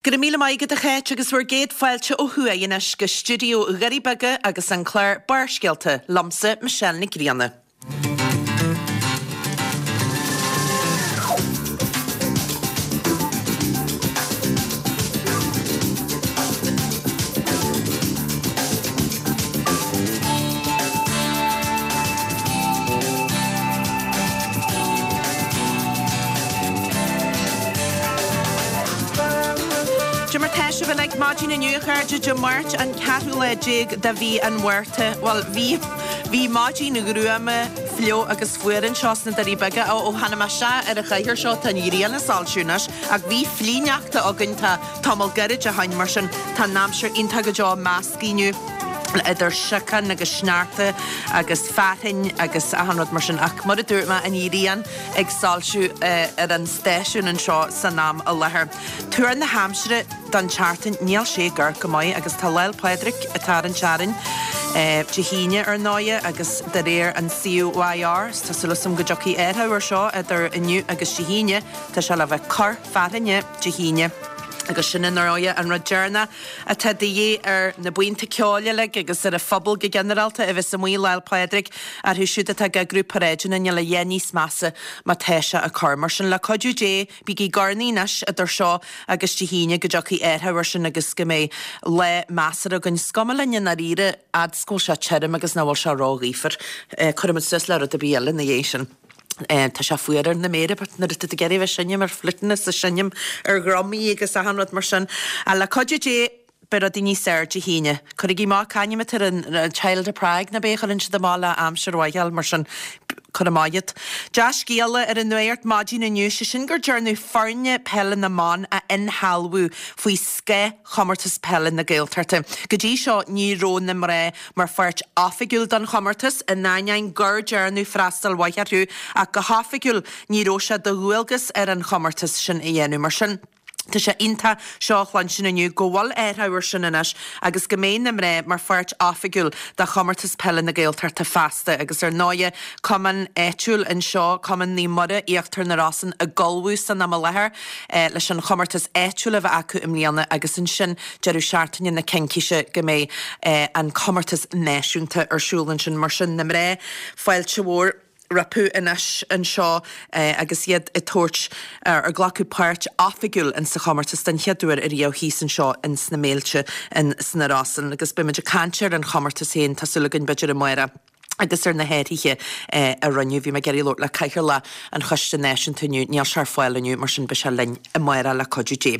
Go raibh míle maith agat a Cháit agus bhur gcéad fáilte ó thuaidh anois go stiúideo Dhoirí Beaga agus an clár Barrscéalta liomsa Michelle Nic Grianna. Dé mar tá sibh uilig maidin inniu, a chairde, Dé Máirt an ceathrú lá déag de mhí an Mhárta. Bhuel, bhí, bhí maidin ghruama, fliuch agus fuar anseo sna Doirí Beaga. Ó, ó tháinig mé isteach ar an chathaoir seo, tá an ghrian ag soilsiú anois, ach bhí flichshneachta againn, tá tamall gairid ó shoin, mar sin tá an aimsir iontach go deo measctha inniu idir siocán agus sneachta agus fearthainn agus achan rud mar sin ach mar a dúirt mé an ghrian ag soilsiú ar an stáisiún anseo san am i láthair. Tuar na haimsire don tseachtain níl sé ag amharc go maith agus tá Lá'l Pádraig ag tarraingt orainn Dé hAoine ar ndóighe agus de réir an COIR tá súil agam go dtiocfaidh athrú ar seo idir inniu agus Dé hAoine tá sé le bheith cor fearthainne Dé hAoine agus sin ar ndóighe an rud deireanach atá de dhíth ar na buíonta ceoil uilig agus ar an phobal go ginearálta a bheas amuigh Lá'l Pádraig, orthu siúd atá ag eagrú paráideanna, níl a dhath níos measa má tá sé ag cur. Mar sin, le cuidiú Dé, bígí ag urnaí anois idir seo agus Dé hAoine go dtiocfaidh athrú air sin agus go mbeidh lá measartha againn. Is cuma linn i ndáiríre, fhad 's go bhfuil sé tirim agus nach bhfuil sé róghaofar. Cuirfimid suas le rud ar bith eile ina dhiaidh sin. Tá sé fuar ar na méara but nuair atá tú ag iarraidh a bheith ag seinm ar fliúiteanna is ag seinm ar dhrumaí agus achan rud mar sin. Ach le cuidiú Dé beidh rudaí níos fearr Dé hAoine. Cuirigí amach c'ainm atá ar an Child of Prague nó b'é a chuireann siad amach le aimsir mhaith a fháil mar sin cuir amach iad. Dea-scéala ar an nuacht maidin inniu, sé sin gur dearnadh foirne peile na mban a inshealbhú faoi scáth Chomórtas Peile na Gaeltachta. Go dtí seo ní raibh na mná mar pháirt oifigiúil den chomórtas, in ainneoin gur dearnadh freastal mhaith orthu, ach go hoifigiúil ní raibh sé de dhualgas ar an chomórtas sin a dhéanamh. Mar sin, tá sé iontach seo a chluinstin inniu, go bhfuil athrú ar sin anois agus go mbeidh na mná mar pháirt oifigiúil de Chomórtas Peile na Gaeltachta feasta. Agus ar ndóighe, cumann áitiúil anseo, Cumann Naomh Muire, Íochtar na Rosann, ag ullmhú san am i láthair leis an chomórtas áitiúil a bheith acu i mbliana agus ansin deireadh seachtaine na Cincíse go mbeidh an comórtas náisiúnta ar siúl ansin. Mar sin, na mná, fáilte mhór rompu anois anseo agus iad ag tabhairt, ag glacadh páirt oifigiúil in sa chomórtas den chéad uair ariamh thíos anseo in sna Méilte in sna Rosann. Agus beidh muid ag caint ar an chomórtas féin, tá súil againn b'fhéidir amárach. agus ar na hathruithe a rinneadh. Bhí mé ag iarraidh labhairt le Cathaoirleach an Choiste Náisiúnta inniu, níl sé ar fáil inniu, mar sin beidh sé linn amárach le cuidiú Dé.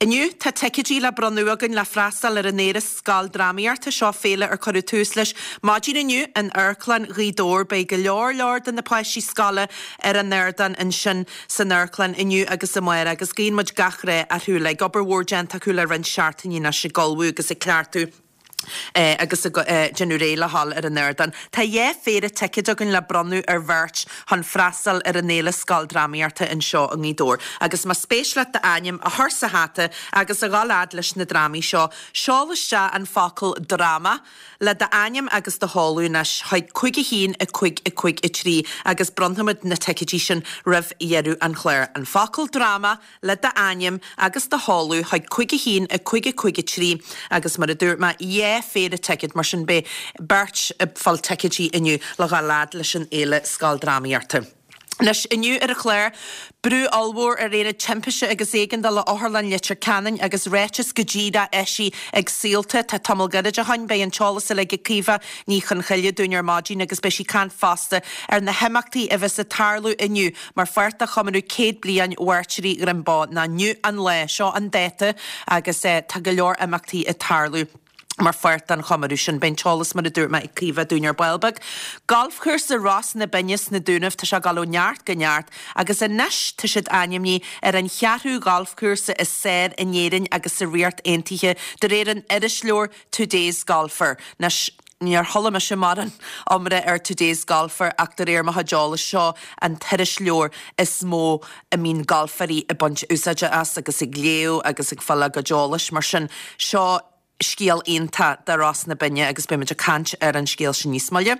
Inniu tá ticéidí le bronnadh againn le freastal ar an Fhéile Scoildrámaíochta, seo féile ar cuireadh tús leis maidin inniu in Amharclann Ghaoth Dobhair. Beidh go leor leor de na páistí scoile ar an ardán ansin san amharclann inniu agus amárach agus guíonn muid gach rath orthu uilig. Obair mhór déanta acu le roinnt seachtainí anois ag ullmhú agus ag cleachtadh. agus ag déanamh réidh le dhul ar an ardán. Tá dhá phéire ticéad againn le bronnadh ar bheirt chun freastal ar an Fhéile Scoildrámaíochta anseo i nGaoth Dobhair. Agus más spéis leat d'ainm a chur sa hata agus a dhul fhad leis na drámaí seo, seol isteach an focal 'dráma' le d'ainm agus do sheoladh anois chuig 5 1 5 5 3 agus bronnfaimid na ticéidí sin roimh dheireadh an chláir. An focal 'dráma' le d'ainm agus do sheoladh chuig 5 1 5 5 3 agus mar a dúirt mé, dhá phéire ticéad, mar sin beidh beirt ag fáil ticéidí inniu le dhul fhad leis an Fhéile Scoildrámaíochta. Anois, inniu ar an chlár, brú ollmhór ar Aonad Timpiste agus Éigeandála Otharlann Leitir Ceanainn agus ráiteas go díreach eisithe ag Saolta. Tá tamall gairid ó shoin, beidh an t-eolas uilig ag Caoimhe Ní Chonchoille dúinn ar maidin agus beidh sí ag caint fosta ar na himeachtaí a bheas ag tarlú inniu Mar pháirt de chomóradh 100 bliain Mhairtírí Dhroim Bó, ná inniu an lá, seo an dáta agus tá go leor imeachtaí ag tarlú mar pháirt den chomóradh sin. Beidh an t-eolas, mar a dúirt mé, ag Caoimhe dúinn ar ball beag. Galfchúrsa Ros na Binne sna Dúnaibh, tá sé ag dul ó neart go neart agus anois tá siad ainmnithe ar an cheathrú ghalfchúrsa is fearr in Éirinn agus sa Ríocht Aontaithe de réir an irisleabhair Today's Golfer. Anois, níor chuala mise mórán iomrá ar Today's Golfer ach de réir mo chuid eolais, seo an t-irisleabhar is mó a mbíonn galfairí ag baint úsáide as agus ag léamh agus ag fáil a gcuid eolais. Mar sin, seo scéal iontach do Ros na Binne agus beidh muid ag caint ar an scéal sin níos moille.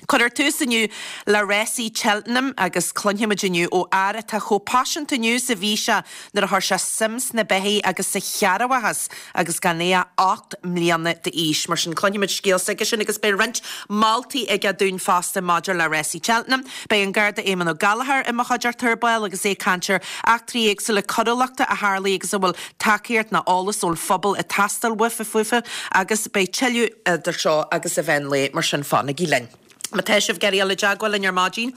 Cuirfear tús inniu le rásaí Cheltenham agus cluinfimid inniu ó fhear atá chomh paiseanta inniu is a bhí sé nuair a chuir sé suim sna beithígh agus sa chearrbhachas agus gan é ach 8 mbliana d'aois. Mar sin cluinfimid scéal s'aigesean agus beidh roinnt moltaí aige dúinn fosta maidir le rásaí Cheltenham. Beidh an Garda Éamonn Ó Gallchóir i mo chuideachta ar ball agus é ag caint ar eachtraí éagsúla coiriúlachta a tharlaigh agus a bhfuil tacaíocht ná eolas ón phobal ag teastáil uafa fúthu agus beidh tuilleadh idir seo agus an mheán lae, mar sin fanaigí linn. Má tá sibh ag iarraidh dul i dteagmháil linn ar maidin,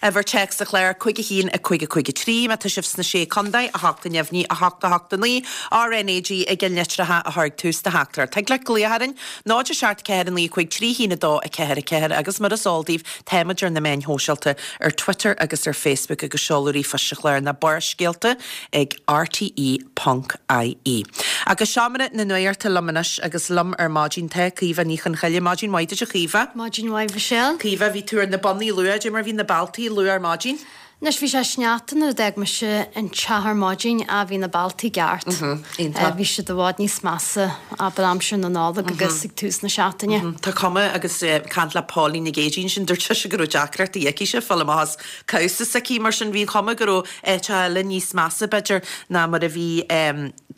uimhir téacs an chláir 5 1 5 5 3, má tá sibh sna Sé Contae, 8 neamhní 8 8 9, RnaG i gceannlitreacha a chur ag tús do theachtaireacht. Thig leat glaoch orainn, 0 7 4 9 5 3 1 2 4 4 agus mar is eol daoibh, táimid ar na meáin shóisialta, ar Twitter agus ar Facebook agus seoladh ríomhphoist an chláir ná Barrscéalta ag rte ponc ie. Agus seomra na nuachta liom anois agus liom ar maidin tá Caoimhe Ní Chonchoille. Maidin mhaith duit a Chaoimhe. Maidin mhaith Mhichelle. Caoimhe, bhí tú ar na bonnaí luath, cad é mar bhí na bealtaí luath ar maidin? Anois bhí sé sneachta nuair a d'fhág mise an teach ar maidin ach bhí na bealtaí i gceart. Iontach. Bhí siad i bhfad níos measa abair aimsir na Nollag agus ag tús na seachtaine. Tá cuma agus caint le Pauline Nic Aoidh ansin dúirt sise go raibh deacrachtaí aici-se fáil amach as cabhsa s'aici mar sin bhí an chuma go raibh áiteacha eile níos measa, b'fhéidir, ná mar a bhí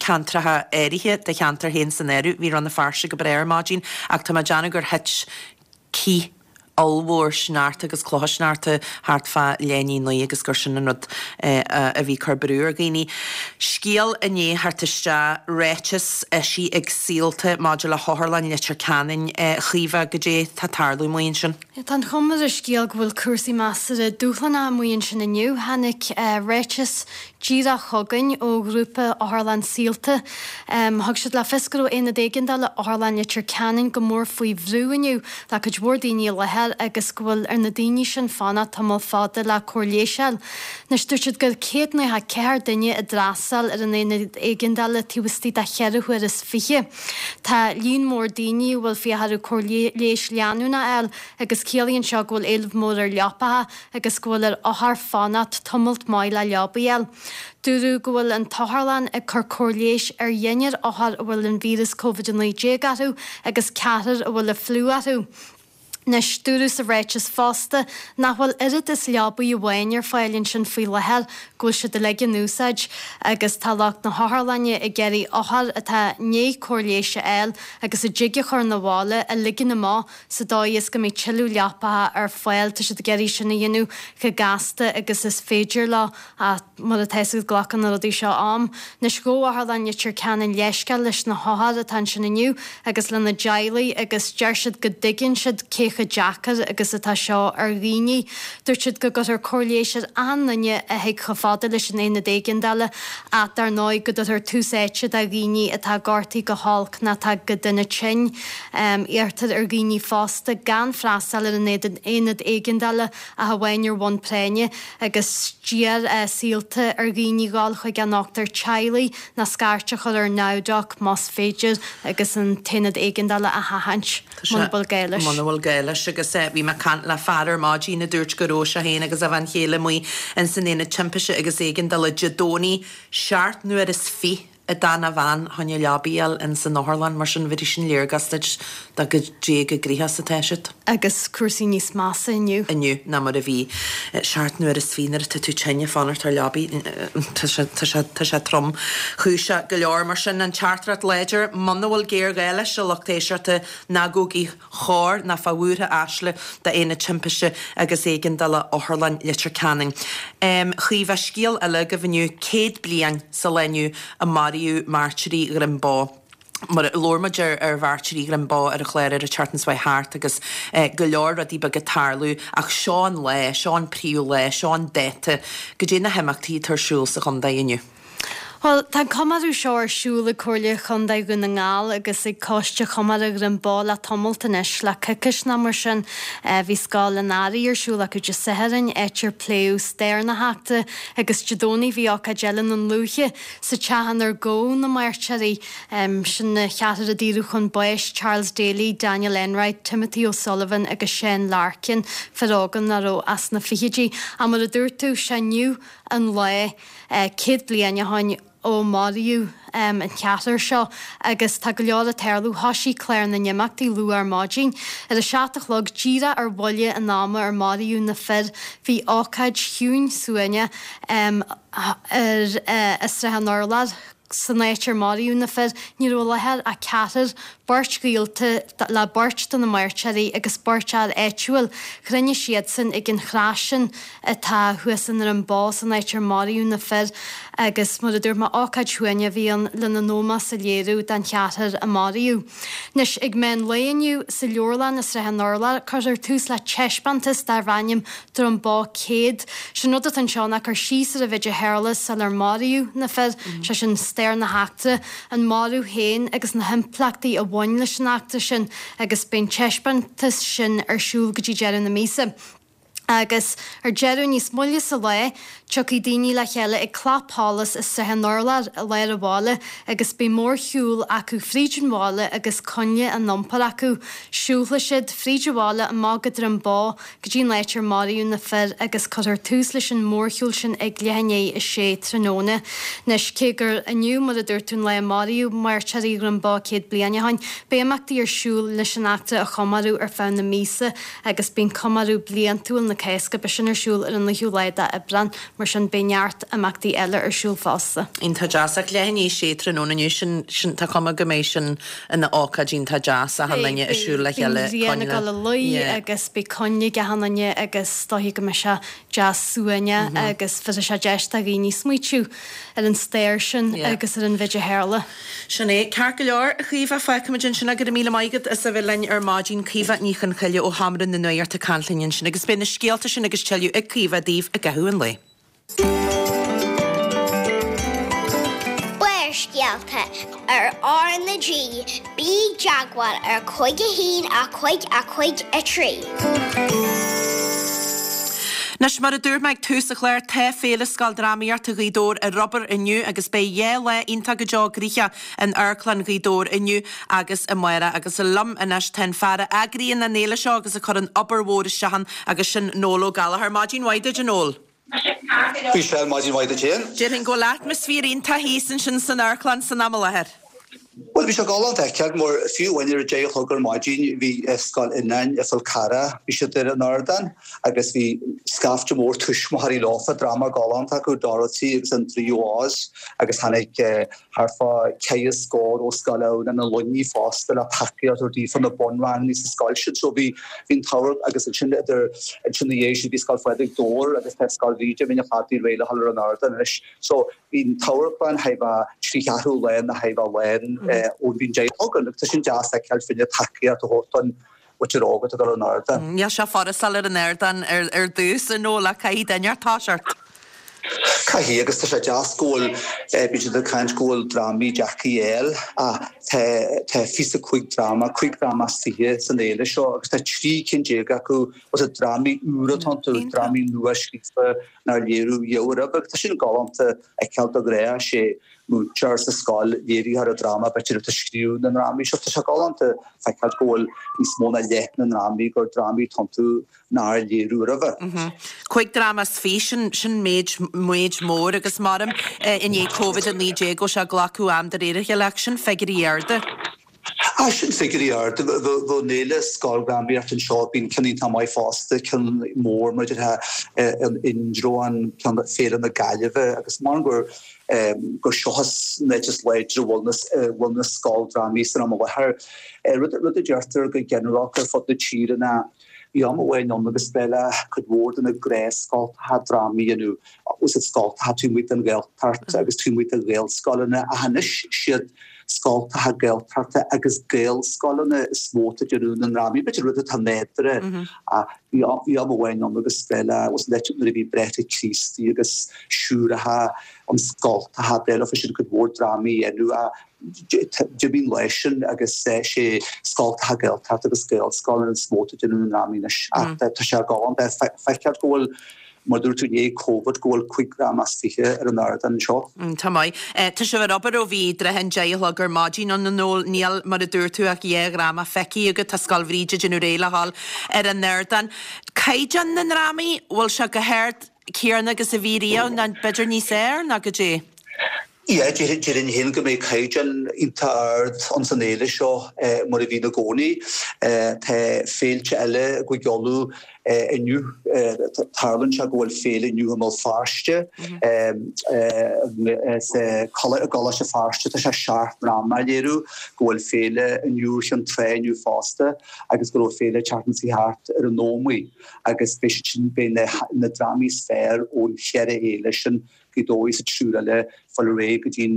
ceantracha áirithe, do cheantar féin san áireamh. Bhí Rann na Feirste go breá ar maidin ach tá mé ag déanamh gur thit cith ollmhór sneachta agus clocha sneachta thart fá leath i ndiaidh a naoi agus gur sin an rud a bhí ag cur brú ar dhaoine. Scéal i ndiaidh theacht isteach, ráiteas eisithe ag Saolta maidir le hOtharlann Leitir Ceanainn, a Chaoimhe, goidé tá ag tarlú amuigh ansin? Tá an chuma ar an scéal go bhfuil cúrsaí measartha dúshlánach amuigh ansin inniu. Tháinig ráiteas díreach chugainn ó ghrúpa Otharlann Saolta. Thug siad le fios go raibh Aonad Éigeandála Otharlann Leitir Ceanainn go mór faoi bhrú inniu le cuid mhór daoine i láthair agus go bhfuil ar na daoine sin fanacht tamall fada le cóir leighis a fháil. Anois dúirt siad gur 194 duine a d'fhreastail ar an Aonad Éigeandála taobh istigh de cheithre huaire is 20. Tá líon mór daoine a bhfuil fiacha orthu cóir leighis leanúnach a fháil agus ciallaíonn seo go bhfuil éileamh mór ar leapacha agus go bhfuil ar othair fanacht tamalt maith le leabaidh a fháil. Dúradh go bhfuil an t-otharlann ag cur cóir leighis ar dheichniúr othar a bhfuil an víreas Covid-19 orthu agus ceathrar a bhfuil an fliú orthu. Anois, dúradh sa ráiteas fosta nach bhfuil oiread is leabaidh amháin ar fáil ansin faoi láthair, go bhfuil siad uilig in úsáid agus tá lucht na hotharlainne ag iarraidh othair atá i ndiaidh cóir leighis a fháil agus a dtig a chur 'na bhaile a ligean amach sa dóigh is go mbeidh tuilleadh leapacha ar fáil. Tá siad ag iarraidh sin a dhéanamh chomh gasta agus is féidir leo ach mar atá a fhios agat glacann na rudaí seo am. Anois ghabh Otharlann Leitir Ceanainn leithscéal leis na hothair atá ansin inniu agus lena dteaghlaigh agus deir siad go dtuigeann siad cé chomh deacair agus atá seo ar dhaoine. Dúirt siad go gcuirfear cóir leighis ar achan duine a thig chomh fada leis an aonad éigeandála ach dar ndóigh go dtabharfar tús áite do dhaoine atá gortaithe go holc nó atá go dona tinn. Iarrtar ar dhaoine fosta gan freastal ar an aonad éigeandála ach amháin ar bhonn práinne agus d'iarr Saolta ar dhaoine dhul chuig a ndochtúir teaghlaigh nó scairt a chur ar NowDoc más féidir agus an t-aonad éigeandála a sheachaint muna bhfuil gá leis. Muna bhfuil gá leis agus bhí mé ag caint le fear ar maidin a dúirt go raibh sé féin agus a bhean chéile amuigh ins an aonad timpiste agus éigeandála Dé Domhnaigh seacht n-uair is fiche a d'fhan a bhean chun leabaidh a fháil ins an otharlann, mar sin bhéarfaidh sin léargas duit de goidé chomh gnoitheach is atá siad. Agus cúrsaí níos measa inniu. inniu ná mar a bhí seacht n-uair is fiche nuair atá tú tinn ag fanacht ar leabaidh. Tá sé, tá sé, tá sé tromchúiseach go leor. Mar sin, an teachtaireacht láidir, muna bhfuil géarghá leis, a lucht éisteachta, ná gabhaigí chor ná fá bhuartha aisle d'Aonad Timpiste agus Éigeandála Otharlann Leitir Ceanainn. Chaoimhe, scéal eile agaibh inniu, 100 bliain sa lá inniu a maraíodh mairtírí Dhroim Bó. Mar labhair muid ar ar mhairtírí Dhroim Bó ar an chlár ar an tseachtain seo thart agus go leor rudaí beaga ag tarlú ach seo an lá, seo an príomh lá, seo an dáta. Goidé na himeachtaí atá ar siúl sa chontae inniu. Bhuel, tá an comóradh seo ar siúl ag Comhairle Chontae Dhún na nGall agus ag Coiste Chomóradh Dhroim Bó le tamalt anois, le coicís nó mar sin. Bhí Scoil an Earraigh ar siúl acu Dé Sathairn, áit ar pléadh stair na heachtra, agus Dé Domhnaigh bhí ócáid eile i nDúiche, sa teach inar gabhadh na mairtírí. Sin na ceathrar a daoradh chun báis, Charles Daly, Daniel Enright, Timothy O'Sullivan agus Seán Larkin, fir óga nach raibh ach sna fichidí. Ach mar a dúirt tú, sé inniu an lá. 100 bliain ó shoin. ó maraíodh an ceathrar seo agus tá go leor ag tarlú. Thoisigh clár na n-imeachtaí luath ar maidin. Ar a 7 a chlog, díreach ar bhuille an ama ar maraíodh na fir, bhí ócáid chiúin suaimhneach ar i Srath an Urláir. San áit ar maraíodh na fir, ní raibh i láthair ach ceathrar, beirt ghaolta le beirt de na mairteoirí agus beirt fhear áitiúil. Chruinnigh siadsan ag an chrois sin atá thuas i nDroim Bó san áit ar maraíodh na fir agus, mar a dúirt mé, ócáid shuaimhneach a bhí ann lena n-ómós a léiriú don cheathrar a maraíodh. Anois, ag meán lae inniu, sa leabharlann i Srath an Urláir, cuirfear tús le taispeántas darb ainm Droim Bó 100. Sé'n rud atá anseo ná cur síos ar an mhéid a tharla sular maraíodh na fir, sé sin stair na heachtra, an marú féin agus na himpleachtaí a bhain leis an eachtra sin agus beidh an taispeántas sin ar siúl go dtí deireadh na míosa. Agus ar deireadh, níos moille sa lá, tiocfaidh daoine le chéile ag Clapsholas i Srath an Urláir i lár an bhaile agus beidh mórshiúl acu fríd an bhaile agus coinnle á n-iompar acu. Siúlfaidh siad fríd an bhaile amach go Droim Bó go dtí an áit ar maraíodh na fir agus cuirfear tús leis an mórshiúl sin ag leath i ndiaidh a sé tráthnóna. Anois, cé gur inniu, mar a dúirt tú, an lá a maraíodh mairteoirí Dhroim Bó 100 bliain ó shin, beidh imeachtaí ar siúl leis an eachtra a chomóradh ar feadh na míosa agus bíonn comóradh bliantúil na Cásca, beidh sin ar siúl ar an 9ú lá d'Aibreán, mar sin beidh neart imeachtaí eile ar siúl fosta. Iontach deas. Ach leath i ndiaidh a sé tráthnóna inniu, sin, sin, tá cuma go mbeidh sin ina ócáid iontach deas, achan duine ag siúl le chéile, Beidh an ghrian ag dul a luí agus beidh coinnle ag achan duine agus is dóichí go mbeidh sé deas suaimhneach agus bhéarfaidh sé deis do dhaoine smaoitiú ar an stair sin agus ar an mhéid a tharla. Sin é. Ceart go leor, a Chaoimhe, fágfaimid ansin é. Go raibh míle maith agat as a bheith linn ar maidin. Caoimhe Ní Chonchoille ó Sheomra na Nuachta ag caint linn ansin agus beidh na scéalta sin agus tuilleadh ag Caoimhe daoibh i gcaitheamh an lae. Barrscéalta ar R na G, bí i dteagmháil ar 5 1 5 5 3. Anois, mar a dúirt mé ag tús an chláir, tá Féile Scoildrámaíochta Ghaoth Dobhair ar obair inniu agus beidh 2 lá iontach go deo gnoitheach in Amharclann Ghaoth Dobhair inniu agus amárach. Agus liom anois tá an fear a eagraíonn an fhéile seo agus a chuireann obair mhór isteach ann agus sin Noel Ó Gallchóir. Maidin mhaith duit, a Noel. Michelle, Maidin mhaith duit féin. Déarfainn go bhfuil atmaisféar iontach thíos ansin san amharclann san am i láthair. Bhuel, bhí sé galánta a fheiceáil mar fiú amháin ar a deich a chlog ar maidin bhí Scoil Fhionáin i Fál Carrach, bhí siad ar an ardán agus bhí scaifte mór tuismitheoirí leofa, dráma galánta acu, Dorothy agus an Draoi ó Oz agus tháinig thart fá ceithre scór ó Scoil Adhamhnáin i Luimnigh fosta le tacaíocht a thabhairt daofa na bunranganna sa scoil sin. So bhí bhí an t-amharc agus ansin idir ansin ina dhiaidh sin bhí Scoil Phádraig Dobhair agus tá Scoil Bhríde Mín an Chladaigh réidh le dhul ar an ardán anois. So bhí an t-amharclann thar a bheith trí cheathrú lán nó thar a bheith lán ón bhí an deich a chlog ann agus tá sin deas a fheiceáil fá choinne tacaíocht a thabhairt don mhuintir óg atá ag dul ar an ardán. Níl sé furast dul ar an ardán ar dtús, a Noel, ach caithfidh duine inteacht toiseacht. Caithfidh, agus tá sé deas go bhfuil, bíonn siad ag caint go bhfuil drámaí deacair a fháil ach tá tá fiche 5 dráma, 5 dráma as 20 san fhéile seo agus tá 13 cinn acu, bhfuil siad drámaí úra atá iontu, drámaí nua scríofa nár léiriú riamh roimhe agus tá sin galánta a fheiceáil de ghnáth, sé múinteoir sa scoil léiritheoir an dráma b'fhéidir atá ag scríobh na ndrámaí seo. Tá sé galánta feiceáil go bhfuil níos mó ná leath na ndrámaí gur drámaí atá iontu nár léiriú roimhe. 5 dráma as 20, sin méid, méid mór agus maram i ndiaidh Covid-19 go bhfuil sé ag glacadh am de réir a chéile ach sin figiúirí arda. Ah, sin figiúirí arda. Bheadh an fhéile scoildrámaíochta anseo, bíonn ceann iontach maith fosta, ceann mór mar a déarfá in Indreabhán, ceann Féile na Gaillimhe agus mar gur gur seo an áit is láidre a bhfuil na bhfuil na scoildrámaí san am i láthair. Rud rud a deirtear go ginearálta ar fud na tíre ná bhí am amháin ann agus ba le cuid mhór de na gnáthscoltacha drámaí a dhéanamh, úsáid scoltacha taobh amuigh den Ghaeltacht agus taobh amuigh de Ghaelscoileanna ach anois siad scoltacha Gaeltachta agus Gaelscoileanna is mó atá ag déanamh na ndrámaí. B'fhéidir rud atá nádúrtha ach bhí bhí am amháin ann agus ba le nuair a bhí Bráithre Críostaí agus Siúracha an scoltacha ba leofa sin cuid mhór drámaí a dhéanamh ach d'imigh an lá sin agus sé scoltacha Gaeltachta agus Gaelscoileanna is mó atá ag déanamh na ndrámaí anois ach tá sé galánta a fheiceáil go bhfuil Mar dúirt tú, i ndiaidh Covid, go bhfuil 5 dhráma as 20 ar an ardán anseo. Tá maith. Tá sibh ar obair ó bhí i dtrátha an deich a chlog ar maidin ann, a Noel. Níl, mar a dúirt tú, ach dhá dhráma feicthe agat. Tá Scoil Bhríde ag déanamh réidh le dhul ar an ardán. Caighdeán na ndrámaí, bhfuil sé chomh hard céanna agus a bhí riamh, nó b'fhéidir níos fhearr, nó goidé? Yeah, déarfainn féin go mbeidh caighdeán iontach ard ins an fhéile seo mar a bhíonn i gcónaí. Tá féilte eile i gCúige Uladh inniu. Tarlaíonn sé go bhfuil féile inniu i mBéal Feirste, sa gColáiste Feirste tá sé seacht ndráma á léiriú, go bhfuil féile inniu ar Chionn Trá inniu fosta agus go raibh féile an tseachtain seo thart ar an Ómaigh agus beidh siad sin, beidh na drámaí is fearr ón cheithre fhéile sin Gaoth Dobhair sa triúr eile fáil ar aghaidh go dtí'n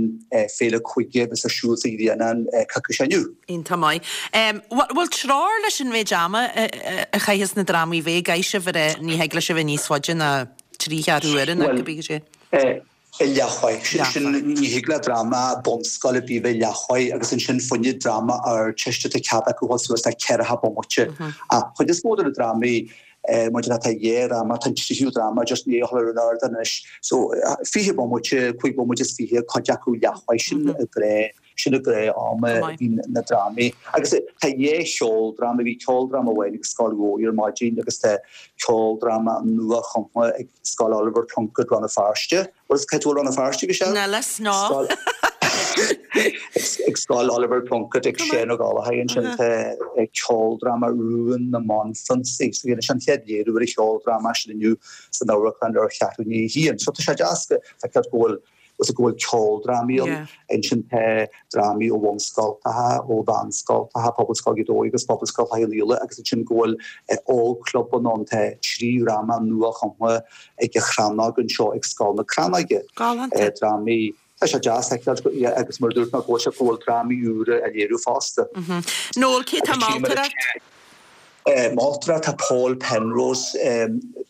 Féile Cúige a bheas ar siúl sa Ghrianán coicís ó inniu. Iontach maith. Bhfuil treoir leis an mhéid ama a chaitheas na drámaí bheith? Caithfidh sibh a rá ní thig le sibh bheith níos faide ná trí cheathrú uaire nó cibé cad é. Leathuair. Sin, ní thig le dráma bunscoile ar bith bheith leathuair agus ansin fá choinne dráma Ardteiste tá cead acu dhul suas le ceathracha bomaite. Ach chuid is mó de na drámaí Maidir le tá dhá dhráma, tá an tríú dráma just i ndiaidh a dhul ar an ardán anois. So, 20 bomaite, 5 bomaite is 20, cuid acu leathuair, sin an gnáth, sin an gnáth am a bhíonn na drámaí. Agus tá dhá cheoldráma, bhí ceoldráma amháin ag Scoil Mhóir ar maidin agus tá ceoldráma nua-chumtha ag Scoil Oliver Plunkett Rann na Feirste. Bhuel, cá bhfuil Rann na Feirste go sean? Níl fhios, no. Ag Scoil Oliver Plunkett ag Seán Ó Gallchóir ansin tá ceoldráma Rún na mBanphrionsaí. So dhéanfaidh sé an chéad léiriú ar an cheoldráma sin inniu san amharclann ar cheathrú i ndiaidh a haon. So tá sé deas go feiceáil go bhfuil go bhfuil ceoldrámaí ann. Ansin tá drámaí ó bhunscoltacha, ó mheánscoltacha, Pobalscoil Ghaoth Dobhair agus Pobalscoil Chathail Uí Íle agus ansin go bhfuil ógchlubanna ann. Tá trí dhráma nua-chumtha ag an Chrannóg anseo ag Scoil na Crannóige. Galánta. Drámaí, tá sé deas a fheiceáil agus mar a dúirt mé go bhfuil sé go bhfuil drámaí úra á léiriú fosta. Noel, cé tá moltóireacht? Moltóireacht tá Paul Penrose,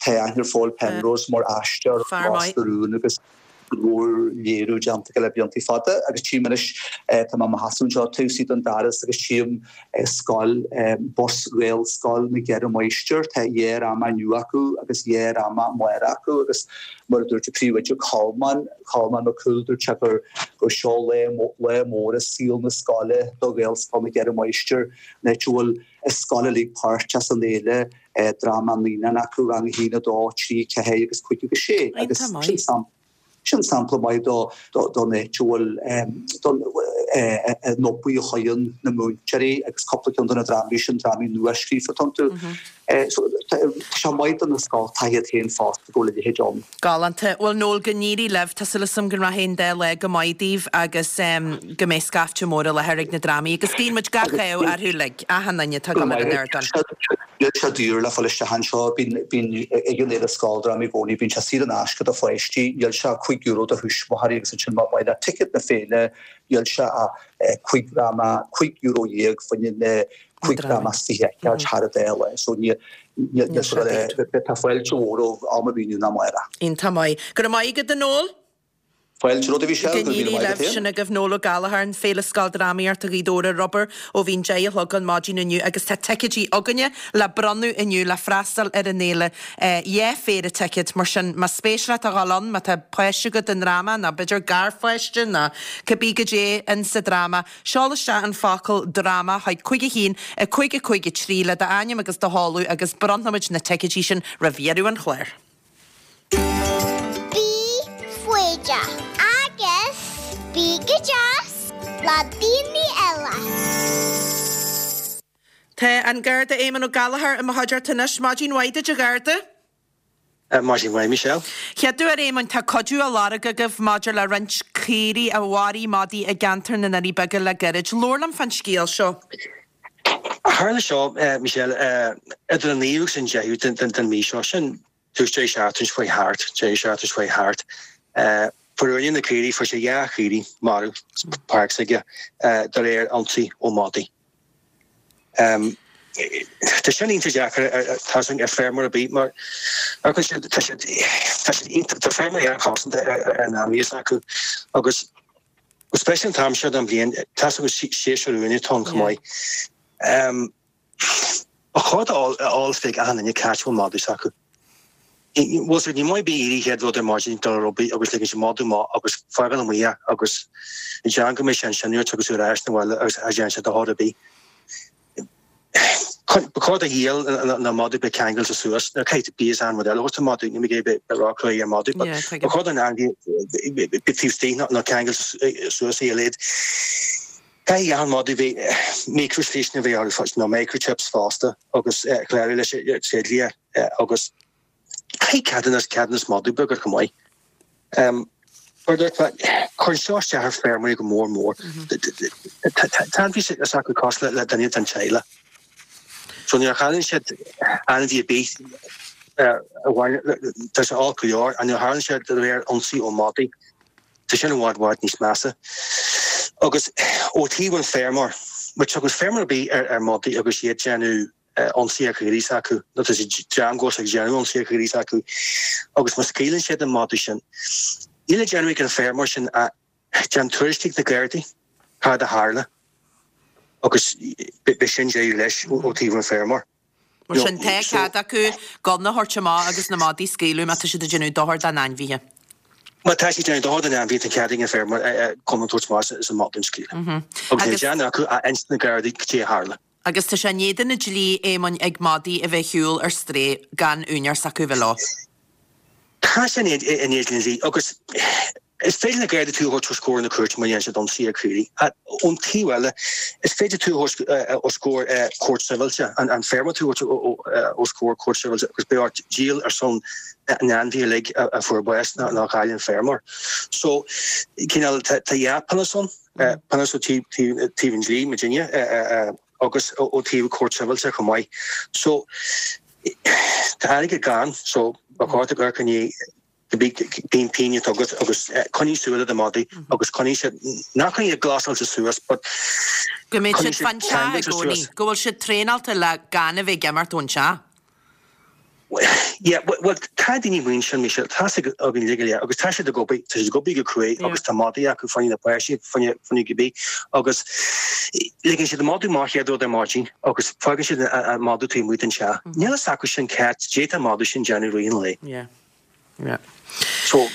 tá aithne ar Paul Penrose mar aisteoir Ros na Rún agus go leor léiriú déanta aige le blianta fada agus tchím anois, tá mé i mo sheasamh anseo taobh istigh den doras agus tchím scoil, bus Ghaelscoil na gCeithre Máistir, tá dhá dhráma inniu acu agus dhá dhráma amárach acu agus mar a dúirt an príomhoide Colmán, Colmán Mac Cumhaill, dúirt sé gur gur seo lá, lá mór i saol na scoile do Ghaelscoil na gCeithre Máistir, an áit a bhfuil an scoil uilig páirteach san fhéile, dráma naíonán acu, rang 1, 2, 3, 4 agus 5 agus 6 agus sin sampla. Sin sampla maith don áit a bhfuil an obair a chuireann na múinteoirí agus cúpla ceann de na drámaí sin, drámaí nua-scríofa atá iontu. So tá sé maith do na scoltacha iad féin fosta go bhfuil a leithéid ann. Galánta. Bhuel Noel, go n-éirí libh. Tá súil agam go rachaidh an dá lá go maith daoibh agus go mbeidh scaifte mór i láthair ag na drámaí agus guíonn muid gach ádh orthu uilig, achan duine atá ag dul ar an ardán. Níl sé daor le fáil isteach anseo. Bíonn, bíonn, ag an Fhéile Scoildrámaí i gcónaí, bíonn sé saor in aisce do pháistí, níl sé ach €5 do thuismitheoirí agus ansin má ba mhaith leat ticéad na féile, níl sé ach cúig dhráma, €15 fá choinne na cúig dhráma is fiche a fheiceáil thar an dá lá. So níl, níl, níl sé, tá fáilte mhór romhaibh am ar bith inniu ná amárach. Iontach maith. Go raibh maith agat a Noel. Fáilte romhat a Mhichelle, go raibh míle maith agat féin. Sin agaibh Noel Ó Gallchóir, an Féile Scoildrámaíochta Ghaoth Dobhair ar obair ó bhí an 10 a chlog an maidin inniu agus tá ticéidí againne le bronnadh inniu le freastal ar an fhéile. Dhá phéire ticéad, mar sin más spéis leat a dhul ann, má tá páiste agat i ndráma nó b'fhéidir garpháiste nó cibé goidé in sa dráma, seol isteach an focal 'dráma' chuig 5 1 5 5 3 le d'ainm agus do sheoladh agus bronnfaimid na ticéidí sin roimh dheireadh an chláir. Bí foighdeach agus bí go deas le daoine eile. Tá an Garda Éamonn Ó Gallchóir i mo chuideachta anois. Maidin mhaith duit a Gharda. Maidin mhaith Michelle. Chéaduair Éamoinn, tá cuidiú á lorg agaibh maidir le roinnt caoirigh a mharaigh madaí i gceantar na nDoirí Beaga le gairid. Labhair liom fán scéal seo. Tharla seo, Michelle, idir an naoú agus an deichiú den mhí seo, sin tús deireadh seachtaine seo chuaigh thart, deireadh seachtaine seo chuaigh thart. Fuair úinéir na caoirigh, fuair sé dhá chaoirigh marbh sa pháirc s'aige de réir ionsaí ó madaí. Tá sin iontach deacair tá sin ar feirmeoir ar bith mar tá siad tá siad tá siad iontach tá feirmeoirí an-chosanta ar an ainmhí s'acu agus Go speisialta an t-am seo den bhliain, tá a fhios agat séasúr uaine atá ann chomh maith. Ba chóir d'eolas bheith ag achan duine cá háit a bhfuil madadh s'acu. Bhfuil siad, ní maith bith éirí chéad rud ar maidin dul ar obair agus ligean sé madadh amach agus fágáil amuigh é agus déan go mbeidh sé ansin uait agus tú ar ais 'na bhaile agus cha dtéann sé do chor ar bith. Ba chóir do ghiall na madadh bheith ceangailte suas. Now caithfidh tú bíos an rud eile a thabhairt don mhadadh, níl mé ag iarraidh bheith róchruaidh ar mhadadh but ba chóir don ainmhí bheith taobh istigh nó ceangailte suas ar a laghad. Caithfidh achan mhadadh bheith micreashliseanna a bheith orthu nó microchips fosta agus clárú leis an tréidlia agus caithfidh ceadúnas ceadúnas madadh beag air chomh maith. Mar a dúirt mé, cuireann seo isteach ar feirmeoirí go mór mór. Tá ainmhí s'acu cosúil le duine den teaghlach. So nuair a chailleann siad ainmhí ar bith, tá sé olc go leor, ach nuair a tharlaíonn sé de réir ionsaí ó mhadaí, tá sin i bhfad bhfad níos measa. Agus ó thaobh an feirmeoir, má tugann feirmeoir ar bith ar mhadaí agus iad déanamh ionsaí ar chaoirigh s'acu, nó tá siad dream go bhfuil siad ag déanamh ionsaí ar chaoirigh s'acu, agus má scaoileann siad an madadh sin, níl le déanamh ag an feirmeoir sin ach déan tuairisc chuig na Gardaí cad a tharla agus beidh sin deireadh leis ó taobh an feirmeoir. Mar sin, tá cead acu gunna a thabhairt amach agus na madaí a scaoileadh má tá siad ag déanamh dochar dá n-ainmhithe. Má tá siad ag déanamh dochar don ainmhí, tá cead ag an feirmeoir gunna a thabhairt amach is an madadh a scaoileadh. Agus níl le déanamh acu ach insint do na Gardaí cad é a tharla. Agus tá sé in éadan an dlí, Éamoinn, ag madaí a bheith ag siúl ar strae gan úinéir s'acu a bheith leo. Tá sé in éadan an dlí agus is féidir na Gardaí tú a thabhairt os comhair na cúirte má dhéanann siad ionsaí ar chaoirigh. Ón taobh eile, is féidir tú a thabhairt os comhair cúirt sibhialta, an feirmeoir tú a thabhairt os comhair cúirt sibhialta agus beidh ort díol ar son na n-ainmhithe uilig a fuair bás nó a chaill an feirmeoir. So, cineál, tá dhá phionós ann. Pionós ó taobh an dlí, muidinne, agus ó taobh cúirt sibhialta chomh maith. So, tá airgead gann, so ba chóir duit amharc i ndiaidh cibé cén pingin atá agat agus coinnigh súil ar do mhadaí agus coinnigh siad, ná coinnigh iad glasáilte suas but Go mbeidh siad fan teach i gcónaí, go bhfuil siad traenáilte le gan a bheith ag imeacht ón teach. Yeah, bhuel, tá daoine amuigh ansin, Michelle, tá a fhios againn uilig go léir, agus tá siad ag obair, tá siad ag obair go cruaidh agus tá madaí acu fá choinne na páistí, fá choinne cibé, agus ligeann siad an madadh amach chéad rud ar maidin agus fágann siad an madadh taobh amuigh den teach. Níl a fhios acu sin cad d'fhéadfadh an madadh sin déanamh i rith an lae. Yeah. Yeah. So,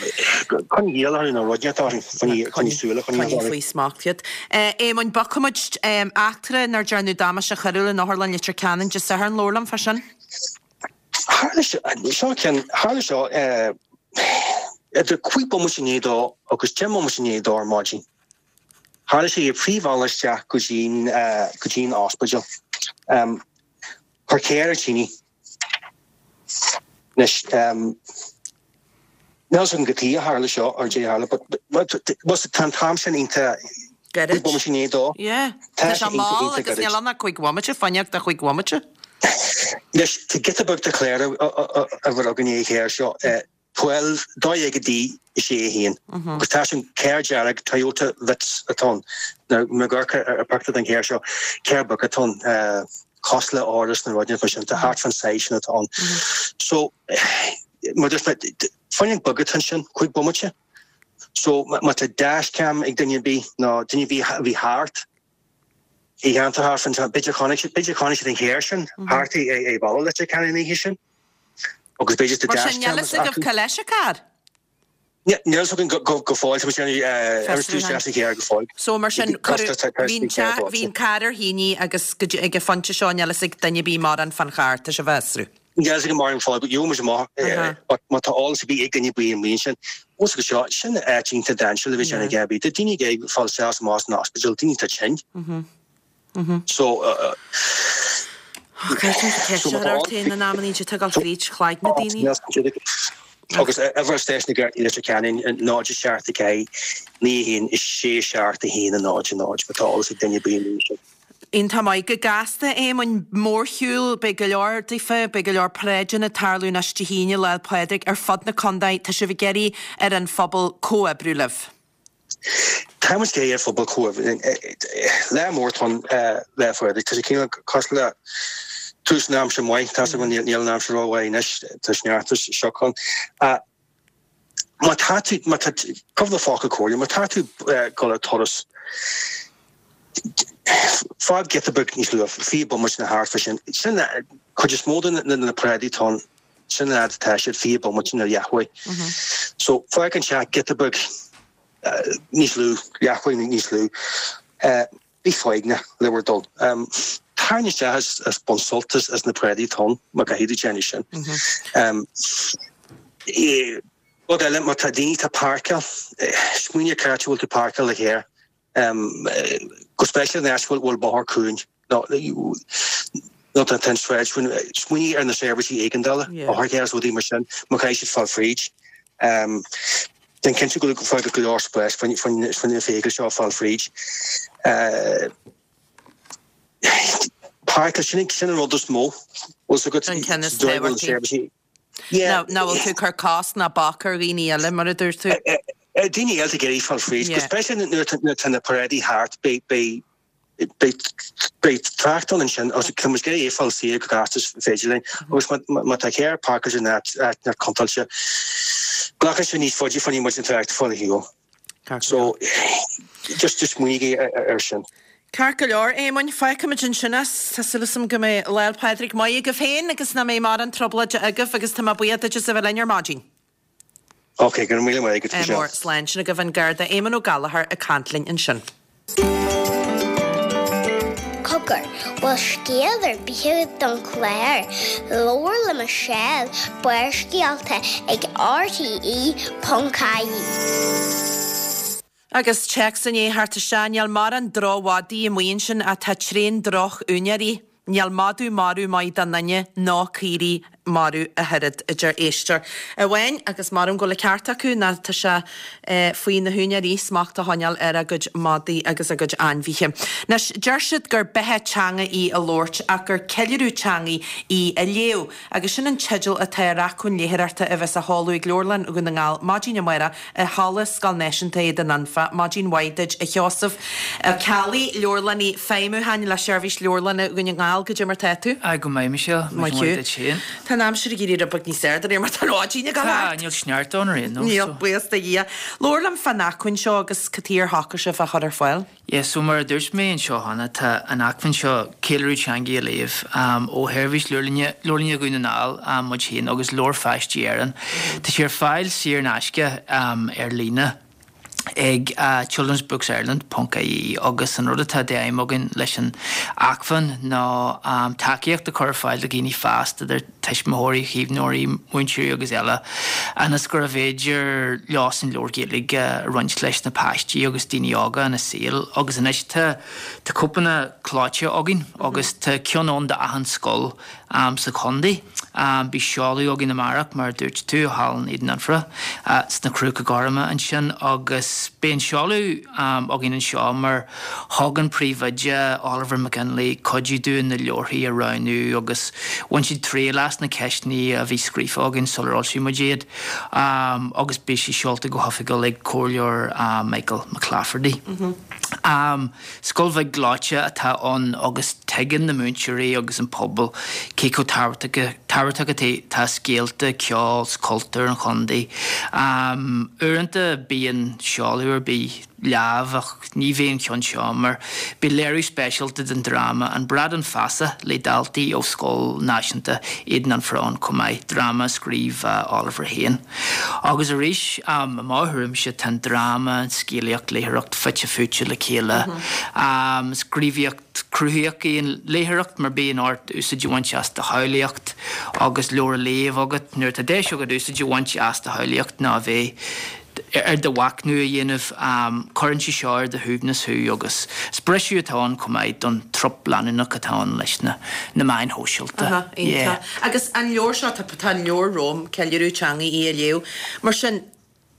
coinnigh iall orthu nó rud inteacht orthu, coinnigh súil, coinnigh orthu. Coinnigh faoi smacht iad. Éamoinn, bogfaidh muid eachtra inar dearnadh damáiste choiriúil in Otharlann Leitir Ceanainn Dé Sathairn, labhair liom fá sin. Tharla seo, ceann, tharla seo idir 5 bomaite i ndiaidh a dó agus 10 mbomaite i ndiaidh a dó ar maidin. Tharla sé ar phríomhbhealach isteach go dtí'n, go dtí'n ospidéal. Chuir carr ar tine. Anois, níl a fhios agam cad chuige a tharla seo or caidé a tharla but but tá an t-am sin iontach Gairid. 5 bomaite i ndiaidh a dó. Yeah. Tá sé mall agus níl ann ach 5 bhomaite, fá choinne do 5 bhomaite. Anois, tá giota beag de chlár uimhir againn ar an charr seo, 12, 12 D 6 1, agus tá sin carr dearg Toyota Vitz atá ann. Now, má amharcann ar pictiúr den charr seo, carr beag atá ann, cosúil le Auris nó rud inteacht mar sin, tá thart fán size sin atá ann. So, mar dúirt mé, fáinne beag atá ansin, 5 bomaite. So, má tá dashcam ag duine ar bith, nó duine ar bith a bhí thart, i gceantar thart fán, b'fhéidir chonaic siad, b'fhéidir chonaic siad an carr sin thart i bhealach Leitir Ceanainn an oíche sin. Agus b'fhéidir tá Mar sin, níl dashcam fhios agaibh acu. cá leis an carr? Níl fhios againn go fóill, tá muid ag déanamh imscrúdú isteach sa charr go fóill. So mar sin, cuireadh, bhí an teach, bhí an carr ar thine agus go dtí, ag an phointe seo níl fhios ag duine ar bith mórán fán charr, tá sibh á fhiosrú. Níl fhios againn mórán fáil, but gheobhaidh muid amach but má tá eolas ar bith ag duine ar bith amuigh ansin, os go seo, sin áit iontach dainséarach le bheith ag déanamh a dhath ar bith. Tá daoine ag fáil isteach is amach as an ospidéal, daoine atá tinn. So, Caithfidh tú ceist a chur ort féin in amannaí, tá ag dul fríd chloigne daoine. Agus uimhir stáisiún na Gardaí Leitir Ceanainn 0 7 4 9 1 6 7 1 0 0 má tá eolas ag duine ar bith amuigh ansin. Iontach maith. Go gasta, Éamoinn, mórshiúl, beidh go leor daofa, beidh go leor paráideanna ag tarlú anois Dé hAoine, Lá 'le Pádraig, ar fud na contae. Tá sibh ag iarraidh ar an phobal comhoibriú libh. Tá muid ag iarraidh ar an phobal comhoibriú linn. Lá mór atá ann, Lá Phádraig. Tá sé cineál cosúil le tús na aimsire maith. Tá a fhios agam níl an aimsir rómhaith anois, tá sneachta is sioc ann. Má tá tú, má tá, cúpla focal comhairle, má tá tú ag dul ar turas, fág giota beag níos luaithe, 20 bomaite nó thart fá sin. Sin cuid is mó de na paráidí atá ann. Sin an fhad atá siad, 20 bomaite nó leathuair. So, fág an teach giota beag níos lú, leathuair níos lú. Bí foighneach le bhur dtoil. Tarraing isteach is bain sult as na paráidí atá ann, má caithfidh tú déanamh sin. Rud eile, má tá daoine atá ag páirceáil, smaoinigh ar cá háit a bhfuil tú ag páirceáil do charr. Go speisialta in áit a bhfuil bóthar cúng nó tá an tsráid cúng, smaoinigh ar na seirbhísí éigeandála, otharchairr is rudaí mar sin, má chaithfidh siad fáil fríd. Déan cinnte go bhfuil go leor spáis fá na feithiclí seo fáil fríd. Páirceáil, sin an rud is mó. An ceann is tábhachtaí. Nach bhfuil tú ag cur cosc ná bac ar dhaoine eile, mar a dúirt tú. Daoine eile ag iarraidh fáil fríd, go speisialta nuair atá na paráidí thart, beidh trácht ann ansin agus tá muid ag iarraidh é fáil saor go gasta is féidir linn agus má tá carr páirceáilte in áit contúirteach, glacann sé níos faide fá choinne muid an trácht a fáil ar shiúl. So, just just smaoinígí ar sin. Ceart go leor, Éamoinn, fágfaimid ansin é. Tá súil agam go mbeidh Lá 'le Pádraig maith agaibh féin agus nach mbeidh mórán trioblóide agaibh agus tá mé buíoch duit as a bheith linn ar maidin. Ok, go raibh míle maith agat, Michelle. Mór, slán sin agaibh an Garda Éamonn Ó Gallchóir ag caint linn ansin. Cogar, bhfuil scéal ar bith agat don chlár? Labhair le Michelle, Barrscéalta ag RTE.ie. Agus téacs i ndiaidh theacht isteach, níl mórán droch-mhadaí amuigh ansin ach tá tréan droch-úinéirí. Níl madadh marbh maith don duine ná caoirigh marbh ach oiread, a deir éisteoir amháin, agus measaim go bhfuil an ceart acu, nó tá sé faoi na húinéirí smacht a choinneáil ar a gcuid madaí agus a gcuid ainmhithe. Anois, deir siad gur beatha teanga í a labhairt ach gur ceiliúradh teanga í a léamh, agus sin an teideal atá ar acmhainn léitheoireachta a bheas á sheoladh ag Leabharlann Dhún na nGall maidin amárach i Halla Scoil Náisiúnta Éadan Anfa. Maidin mhaith duit, a Sheosaimh Ó Ceallaigh, Leabharlannaí Feidhmiúcháin le Seirbhís Leabharlainne Dhún na nGall. Goidé mar tá tú? Aye, go maith, Michelle. Maith thú. Duit féin. Tá an aimsir ag éirí rud beag níos fearr de réir mar tá an mhaidin ag dul Tá, thart. níl sneachta ann ar aon nós, Níl, so. buíochas do Dhia. Labhair liom fán acmhainn seo agus cad chuige ar shocraigh sibh é a chur ar fáil. Yeah, so mar a dúirt mé anseo cheana, tá an acmhainn seo, Ceiliúradh Teangaidh a Léamh, ó Sheirbhís Leabharlainne, Leabharlainne Dhún na nGall, muid féin, agus Leabhair Pháistí Éireann. Tá sé ar fáil saor in aisce ar líne ag children's books ireland ponc ie agus an rud atá d'aidhm againn leis an acmhainn ná tacaíocht a chur ar fáil do dhaoine fásta, idir tuismitheoirí, chaomhnóirí, múinteoirí agus eile, ionas gurbh fhéidir leosan leabhair Ghaeilge a roinnt leis na páistí agus daoine óga ina saol. Agus anois tá tá cóipeanna clóite againn agus tá ceann ann d'achan scoil sa chontae. Beidh seoladh againn amárach, mar a dúirt tú, i Halla Éadan Anfa, sna Cruacha Gorma ansin agus beidh an seoladh againn anseo mar Thug an príomhoide, Oliver McGinley, cuidiú dúinn na leabharthaí a roghnú agus bhain siad triail as na ceisteanna a bhí scríofa againn sular fhoilsigh muid iad agus beidh sé seolta go hoifigiúil ag Comhairleoir Michael McClafferty. Scoil bheag ghleoite atá ann agus tuigeann na múinteoirí agus an pobal cé chomh tábhachtach atá scéalta, ceol 's cultúr an chontae. Uaireanta bíonn seoladh ar bith leamh ach ní bheidh an ceann seo mar beidh léiriú speisialta den dráma An Bradán Feasa le daltaí ó Scoil Náisiúnta Éadan Anfa ann chomh maith, dráma a scríobh Oliver féin. Agus arís, i mo thuairimse, tá an dráma, an scéalaíocht, léitheoireacht fite fuaite le chéile. Is gníomhaíocht cruthaitheach í an léitheoireacht mar bíonn ort úsáid a bhaint as do shamhlaíocht agus leabhar á léamh agat. Nuair atá deis agat úsáid a bhaint as do shamhlaíocht ná a bheith ar do mhachnamh a dhéanamh, cuireann sé seo ar do shuaimhneas thú agus is briseadh atá ann chomh maith don trup leanúnach atá ann leis na meáin shóisialta. Aha, iontach. Agus an leabhar seo, tá tá an leabhar romham, Ceiliúradh Teangaidh í a Léamh. Mar sin,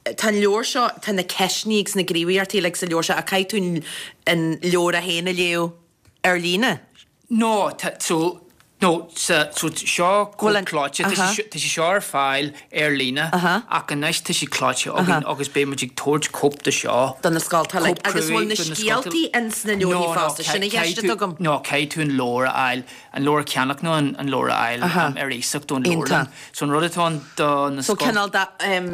tá an leabhar seo, tá na ceisteanna agus na gníomhaíochtaí uilig sa leabhar seo ach caithfidh tú an leabhar é féin a léamh ar líne. No, tá, so, no, sa, so seo cóip clóite, tá sé, tá sé seo ar fáil ar líne ach anois tá sé clóite againn agus beidh muid ag tabhairt cóip de seo. Do na scoltacha uilig. Agus bhfuil na scéaltaí ins na leabharthaí fosta? Sin an cheist atá agam. No, caithfidh tú an leabhar a fháil, an leabhar a cheannach nó an leabhar a fháil ar iasacht ón leabharlann. So an rud atá ann do na So cineál de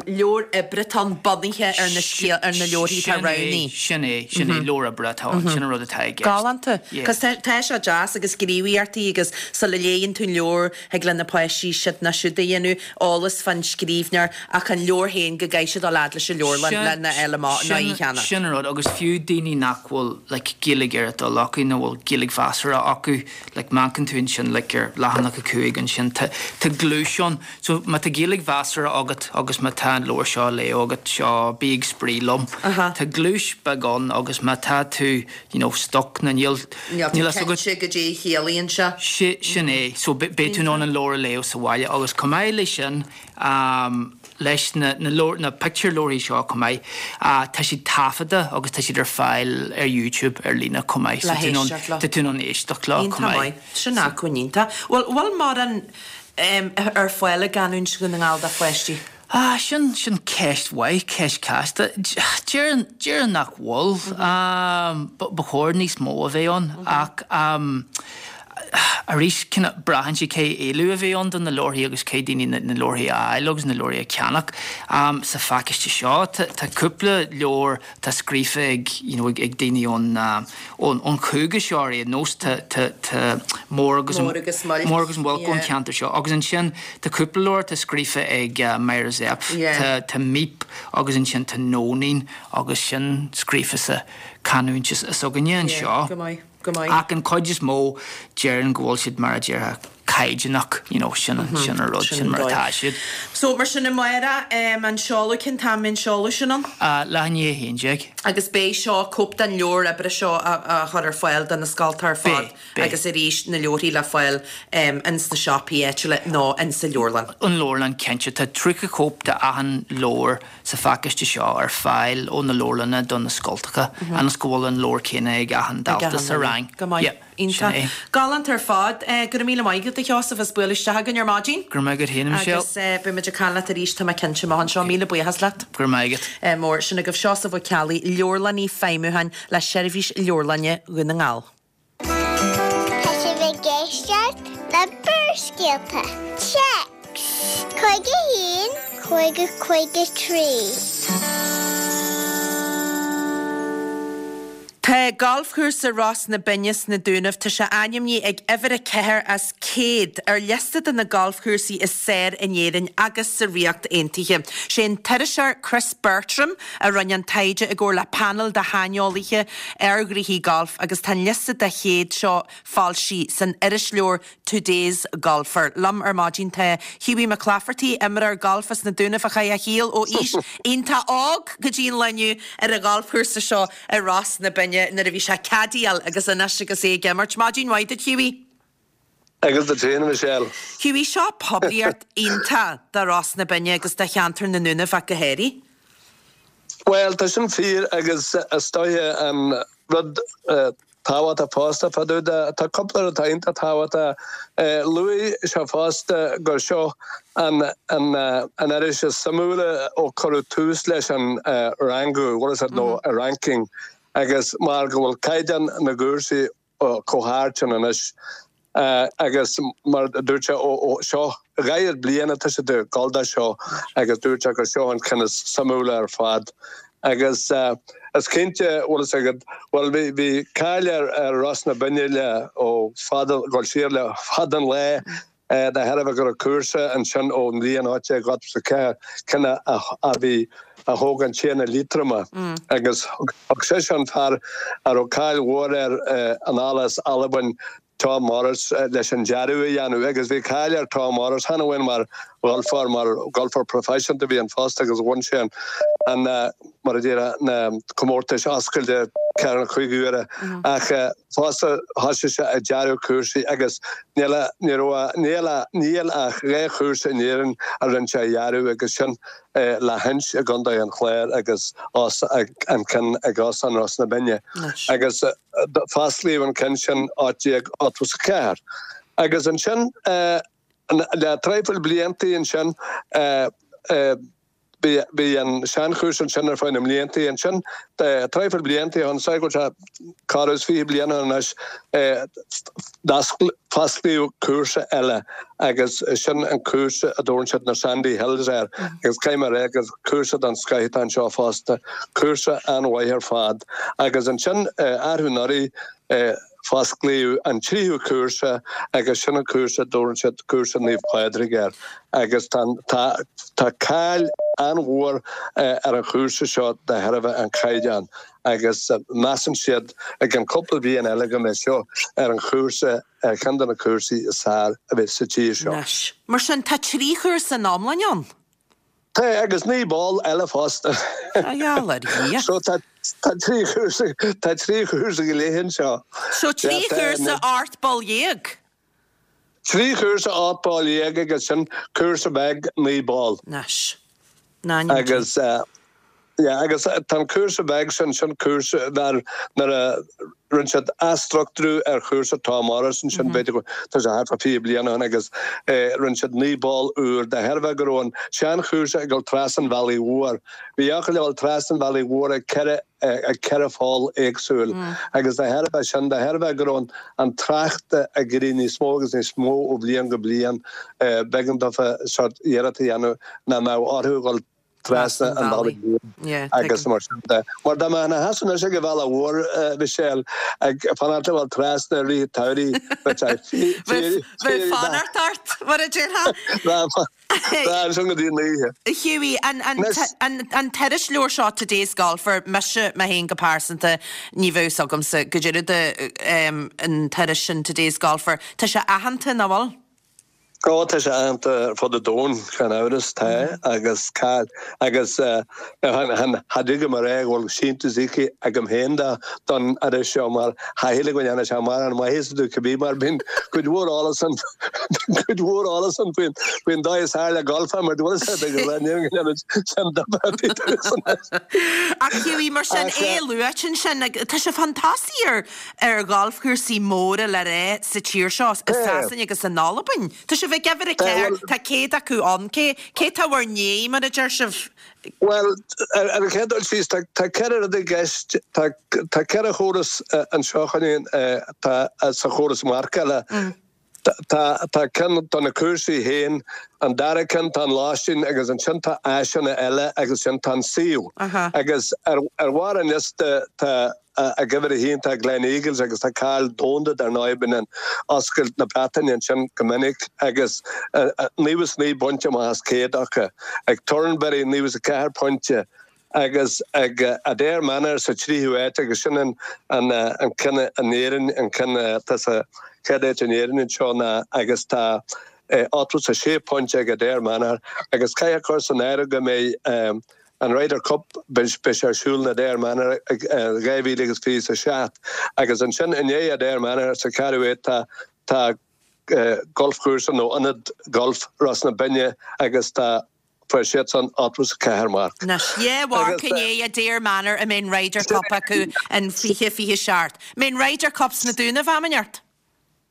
leabhar oibre atá ann bunaithe ar na scéal, ar na leabharthaí atá roghnaithe. Sin é, sin é, leabhar oibre atá ann, sin an rud atá i gceist. Galánta. Cos tá, tá sé deas agus gníomhaíochtaí agus sa le. a léigheann tú an leabhar, thig le na páistí siod nó siúd a dhéanamh, eolas fán scríbhneoir, ach an leabhar féin, go gcaithfidh siad dul fhad leis an leabharlann lena fháil amach nó í a cheannach. Sin an rud, agus fiú daoine nach bhfuil like Gaeilge ar a dtoil acu nó bhfuil Gaeilge mheasartha acu, like má amharcann tú ansin like ar leathanach 5 ansin tá tá gluais ann. So má tá Gaeilge mheasartha agat agus má tá an leabhar seo á léamh agat, seo Bí ag Spraoi Liom. Tá gluais beag ann agus má tá tú you know stuck nó níl Níl tú cinnte goidé a chiallaíonn sé. Sin é. So beidh tú in ann an leabhar a léamh sa bhaile agus chomh maith leis sin, leis na na pictiúrleabharthaí seo chomh maith, tá siad taifeadta agus tá siad ar fáil ar YouTube ar líne chomh maith. Le héisteacht leo. Tá tú in ann éisteacht leo chomh maith. Iontach maith. Sin acmhainn iontach. Bhfuil bhfuil mórán ar fáil i gcanúint Dhún na nGall do pháistí? Ah, sin, sin ceist mhaith, ceist chasta. Déarfainn, déarfainn nach bhfuil. Ba chóir níos mó a bheith ann ach arís, kinda braitheann sé cén éileamh a bheidh ann do na leabharthaí agus caithfidh daoine na leabharthaí a fháil agus na leabharthaí a cheannach. Sa phacáiste seo tá, tá cúpla leabhar atá scríofa ag, you know, ag daoine ón, ón, ón chúige seo ar aon nós, tá, tá, tá Mór agus, Mór agus Muilc, Mór agus Muilc ón cheantar seo agus ansin tá cúpla leabhar atá scríofa ag Myra Zepf, tá, tá Míp agus ansin tá Nóinín agus sin scríofa sa chanúint s'againne anseo. Go maith, go maith. Ach an chuid is mó déarfainn go bhfuil siad mar a déarfá caighdeánach, you know, sin an, sin an rud, sin mar atá siad. So, mar sin amárach, an seoladh, cén t-am a mbeidh an seoladh sin ann? Leath i ndiaidh a 11. Agus beidh seo, cóip den leabhar oibre seo á chur ar fáil do na scoltacha ar fad. Beidh, beidh. Agus arís, na leabharthaí le fáil ins na siopaí áitiúla nó ins an leabharlann. An leabharlann, cinnte. Tá 30 cóip de achan leabhar sa phacáiste seo ar fáil ó na leabharlanna do na scoltacha, ionas go bhfuil an leabhar céanna ag achan dalta sa rang. Go maith. Yeah, sin Iontach. é. Galánta ar fad. Go raibh míle maith agat, a Sheosaimh, as bualadh isteach againn ar maidin. Go raibh maith agat féin, a Michelle. Agus beidh muid ag caint leat arís, tá mé cinnte, amach anseo. Míle buíochas leat. Go raibh maith agat. Mór. Sin agaibh Seosamh Ó Ceallaigh, Leabharlannaí Feidhmiúcháin le Seirbhís Leabharlainne Dhún na nGall. Tá sibh ag éisteacht le Barrscéalta. Téacs 51 50 53. Tá Galfchúrsa Ros na Binne sna Dúnaibh, tá sé ainmnithe ag uimhir 4 as 100 ar liosta de na galfchúrsaí is fearr in Éirinn agus sa Ríocht Aontaithe. Sé an t-iriseoir Chris Bertram a rinne an taighde i gcomhar le painéal de shaineolaithe ar ghnoithí gailf agus tá an liosta de 100 seo foilsithe san irisleabhar Today's Golfer. Liom ar maidin tá Hughie McClafferty, imreoir gailf as na Dúnaibh a chaith a shaol ó aois iontach óg go dtí an lá inniu ar an ghalfchúrsa seo i Ros na Binne nuair a bhí sé ag caddyáil agus anois agus é ag imirt. Maidin mhaith duit Hughie. Agus duit féin, a Michelle. Hughie, seo poiblíocht iontach do Ros na Binne agus do cheantar na nDúnaibh ach go háirithe. Bhuel, tá sin fíor agus is dóiche an rud tábhachtach fosta fá dtaobh de, tá cúpla rud atá iontach tábhachtach. Luaigh sé fosta gur seo an an iris is suimiúla ó cuireadh tús leis an rangú, what is it, nó ranking, agus mar go bhfuil caighdeán na gcúrsaí chomh hard sin anois agus mar a dúirt sé ó seo 40 bliain atá siad ag dul dó seo agus dúirt sé gur seo an ceann is suimiúla ar fad agus is cinnte bhfuil fhios agat bhuel bhí bhí cáil ar ar Ros na Binne le ó fada dul siar le fada an lá De thairbhe go raibh cúrsa ansin ón mbliain 1884, ceann a bhí, a thóg an Tiarna Liatroma agus thug seisean fear a raibh cáil mhór air anall as Albain, Tom Morris, leis an dearadh a dhéanamh agus bhí cáil ar Tom Morris, chan amháin mar gholfóir, mar gholfóir proifisiúnta a bhí ann fosta agus bhain sé an, mar a déarfá, na comórtais oscailte ceathair nó cúig huaire ach fosta thosaigh sé ag dearadh cúrsaí agus níl ní raibh níl níl ach dhá chúrsa in Éirinn a rinne sé a dhearadh agus sin Lahinch i gContae an Chláir agus an ceann ag Óstán Ros na Binne agus fosclaíodh an ceann sin 1884 agus ansin le traidhfil bliantaí ansin Bhí an seanchúrsa ansin ar feadh na mblianta. Ansin, traidhfil blianta ó shin, is dóigh go bhfuil sé corradh is 20 bliain ó shin anois, fosclaíodh cúrsa eile agus sin an cúrsa a dtabharann siad na Sandy Hills air. Agus caithfidh mé a rá gur cúrsa den scoith atá anseo fosta, cúrsa an-mhaith ar fad. Agus ansin, arú anuraidh. Fosclaíodh an tríú cúrsa agus sin an cúrsa a dtabharann siad cúrsa Naomh Pádraig air agus tá tá cáil an-mhór ar an chúrsa seo de thairbhe an chaighdeáin agus measann siad i gceann cúpla bliain eile go mbeidh seo ar an chúrsa ar cheann de na cúrsaí is fearr a bheidh sa tír seo. Anois, mar sin, tá 3 chúrsa in iomláine ann? Tá, agus 9 bpoll eile fosta. A gheall ar Dhia. So tá 3 chúrsa, tá 3 chúrsa go leith anseo. So 3 chúrsa, 18 bpoll? 3 chúrsa, 18 bpoll agus sin cúrsa beag 9 bpoll. Anois. Agus. Yeah, agus tá an cúrsa beag sin, sin cúrsa nuair a rinne siad athstruchtúrú ar chúrsa Tom Morris ansin, b'fhéidir go, tá sé thart fá 20 bliain ó shin agus rinne siad 9 bpoll úr de thairbhe go raibh an seanchúrsa ag dul trasna an bhealaigh mhóir. Bhí eochair ag dul trasna an bhealaigh mhór ag ceithre, ag ceithre pholl éagsúil agus de thairbhe sin, de thairbhe go raibh an trácht ag éirí níos mó agus níos mó ó bhliain go bliain, b'éigean dófa sórt iarracht a dhéanamh nach mbeadh orthu a dhul trasna an bhealaigh mhóir agus mar sin de. Mar dá mbeifeá ina sheasamh anois ag an bhealach mhór, Michelle, ag fanacht le dhul trasna i rith an tsamhraidh, bheadh sé Bheadh fanacht ort, mar a déarfá. Bheadh ansin go dtí an oíche. Hughie, an t-irisleabhar seo, Today's Golfer, mise, mé féin go pearsanta, ní bheadh fhios agamsa goidé rud an t-iris sin, Today's Golfer. Tá sé aitheanta, nach bhfuil? Ó, tá sé aitheanta ar fud an domhain, gan amhras, tá, agus cáil, agus cha dtig liom a rá go bhfuil síntiús íoctha agam féin do, don iris seo mar cha shílim go ndéanann sé mórán maitheasa domh cibé mar bíonn cuid mhór eolas ann, cuid mhór eolas ann faoin, faoin dóigh is fearr le golfáil mar bhfuil fhios agat go ndéanann sin difear ar bith domhsa. Ach Hughie, mar sin, é luaite ansin, tá sé chun tosaigh ar, ar ghalfchúrsaí móra le rá sa tír seo, i Sasana agus in Albain. Tá sibh ag uimhir a ceathair, tá 100 acu ann. Cé cé tá bhur ndiaidh, mar a deir sibh? Bhuel, ar an chéad dul síos, tá ceithre rud i gceist. Tá ceithre chóras anseo, chun tá sa chóras marcála. Tá tá ceann do na cúrsaí féin, an dara ceann tá an lóistín agus ansin tá áiseanna eile agus ansin tá an suíomh. Agus ar ar bharr an liosta tá ag uimhir a haon tá Gleneagles agus tá cáil domhanda dar ndóigh bíonn an Oscailt na Breataine ansin go minic agus 99 bpointe amach as 100 acu. Ag Turnberry 94 pointe. agus ag Adare Manor sa tríú háit agus sin an an ceann in Éirinn, an ceann atá sa chéad áit in Éirinn anseo ná agus tá 86 pointe ag Adare Manor agus caithfidh a chur san áireamh go mbeidh an Ryder Cup beidh sé ar siúl in Adare Manor ag 2027 agus ansin i ndiaidh Adare Manor sa cheathrú háit tá tá galfchúrsa nó ionad gailf Ros na Binne agus tá Fuair siadsan 84 marc. Anois, dhá mharc i ndiaidh Adare Manor a mbeidh an Ryder Cup acu in 2027. Mbeidh an Ryder Cup sna Dúnaibh am inteacht?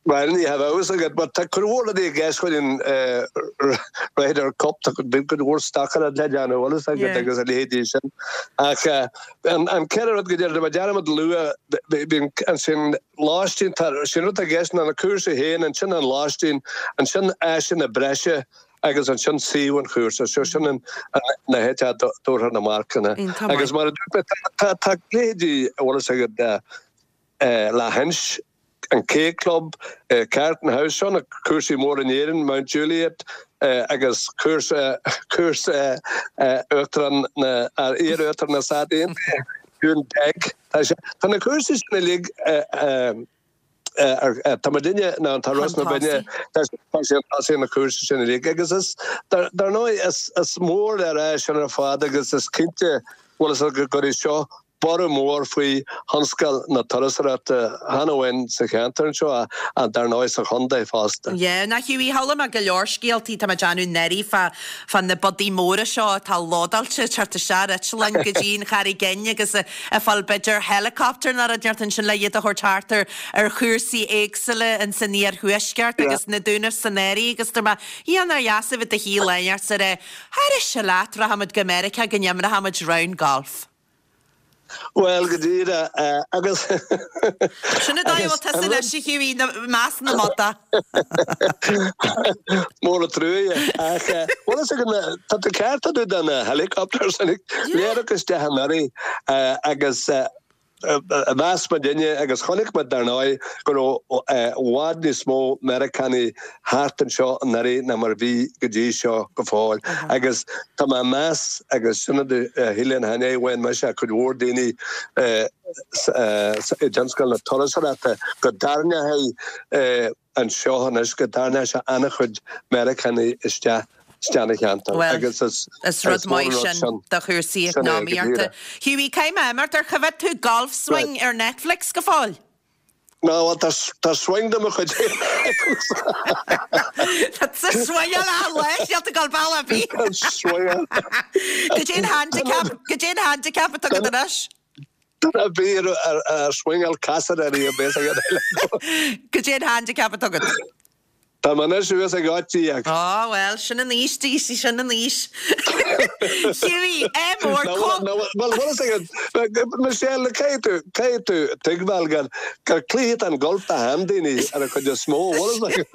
Bhuel, ní bheadh a fhios agat, mar tá cuid mhór rudaí i gceist chuig an Ryder Cup, tá cuid mhór stocaireacht le déanamh, bhfuil fhios agat, agus a leithéidí sin. Ach an ceithre rud go deireadh, mé dearmad a lua, bíonn ansin lóistín, tá, sin rud atá i gceist ná na cúrsaí féin, ansin an lóistín, ansin áiseanna breise, agus ansin suíomh an chúrsa, so sin an na háit a dtabharfar na marcanna. Agus mar a dúirt mé, tá tá leithéidí, a bhfuil fhios agat, Lahinch, an K Club, Carton House, seo na cúrsaí móra in Éirinn, Mount Juliet agus cúrsa cúrsa Uachtarán na iar-Uachtarán na Stát Aontaithe, Dún Bheag. Tá sé tá na cúrsaí sin uilig Tá muidinne ná tá Ros na Binne tá sé chun tosaigh na cúrsaí sin uilig agus is dar ndóigh is mór le rá sin ar fad agus is cinnte bhfuil fhios agat go gcuirfidh seo borradh mór faoi thionscal na turasóireachta chan amháin sa cheantar anseo ach dar ndóigh sa chontae fosta. Yeah, now Hughie, chuala mé go leor scéaltaí, tá mé ag déanamh náirí fá fá na biodaí móra seo atá lódáilte ag teacht isteach ar eitleáin go dtí an Charraig Fhinn agus ag fáil b'fhéidir helicopter nó rud inteacht ansin le iad a thabhairt thart ar ar chúrsaí éagsúla ins an iarthuaisceart agus na Dúnaibh san áireamh agus dúirt mé, Dhia nár dheas a bheith i do shuí lá inteacht is a rá, Tharais leat, rachaimid go Meiriceá go n-imreochaimid round golf. Bhuel, go díreach, agus. Sin an dóigh a bhfuil tusa anois, a Hughie, i measc na mbodach. Mór an truaighe. Ach, bhfuil fhios agat, tá tú ceart fá dtaobh de na helicopters, léireach isteach anuraidh agus. Mheas muidinne agus chonaic muid dar ndóigh go raibh i bhfad níos mó Meiriceánaigh thart anseo anuraidh ná mar a bhí go dtí seo go fóill. Agus tá mé ag meas, agus sin rud a shíl an cheana mise ach cuid mhór daoine i dtionscal na turasóireachta, go dtarraingeoidh anseo anois go dtarraingeoidh sé an-chuid Meiriceánaigh isteach isteach ina cheantar Bhuel, agus is is rud is mór maith an rud sin sin do chúrsaí sin é go eacnamaíochta. díreach. Hughie, caithfidh mé imeacht, ar choimhéad tú Golf Right. Swing ar Netflix go fóill? Ná, bhuel, tá tá swing de mo chuid féin agamsa. Tá tú swingeáil achan lá, níl tú ag dul bealach ar bith. Swingeáil. Goidé an handicap, goidé an handicap atá agat anois? Duine ar bith ar swingeáil casadh ar í a bheas ag an eile. Goidé an handicap atá agat? Tá mé anois suas ag 18. Á bhuel, sin an aois di, sí sin an aois. Hughie, ádh mór, Nó bhfuil bhfuil fhios agat, Michelle, caithfidh tú, caithfidh tú tuigbheáil gur, gur cluiche atá in golf do sheandaoine ar an chuid is mó, bhfuil fhios agat?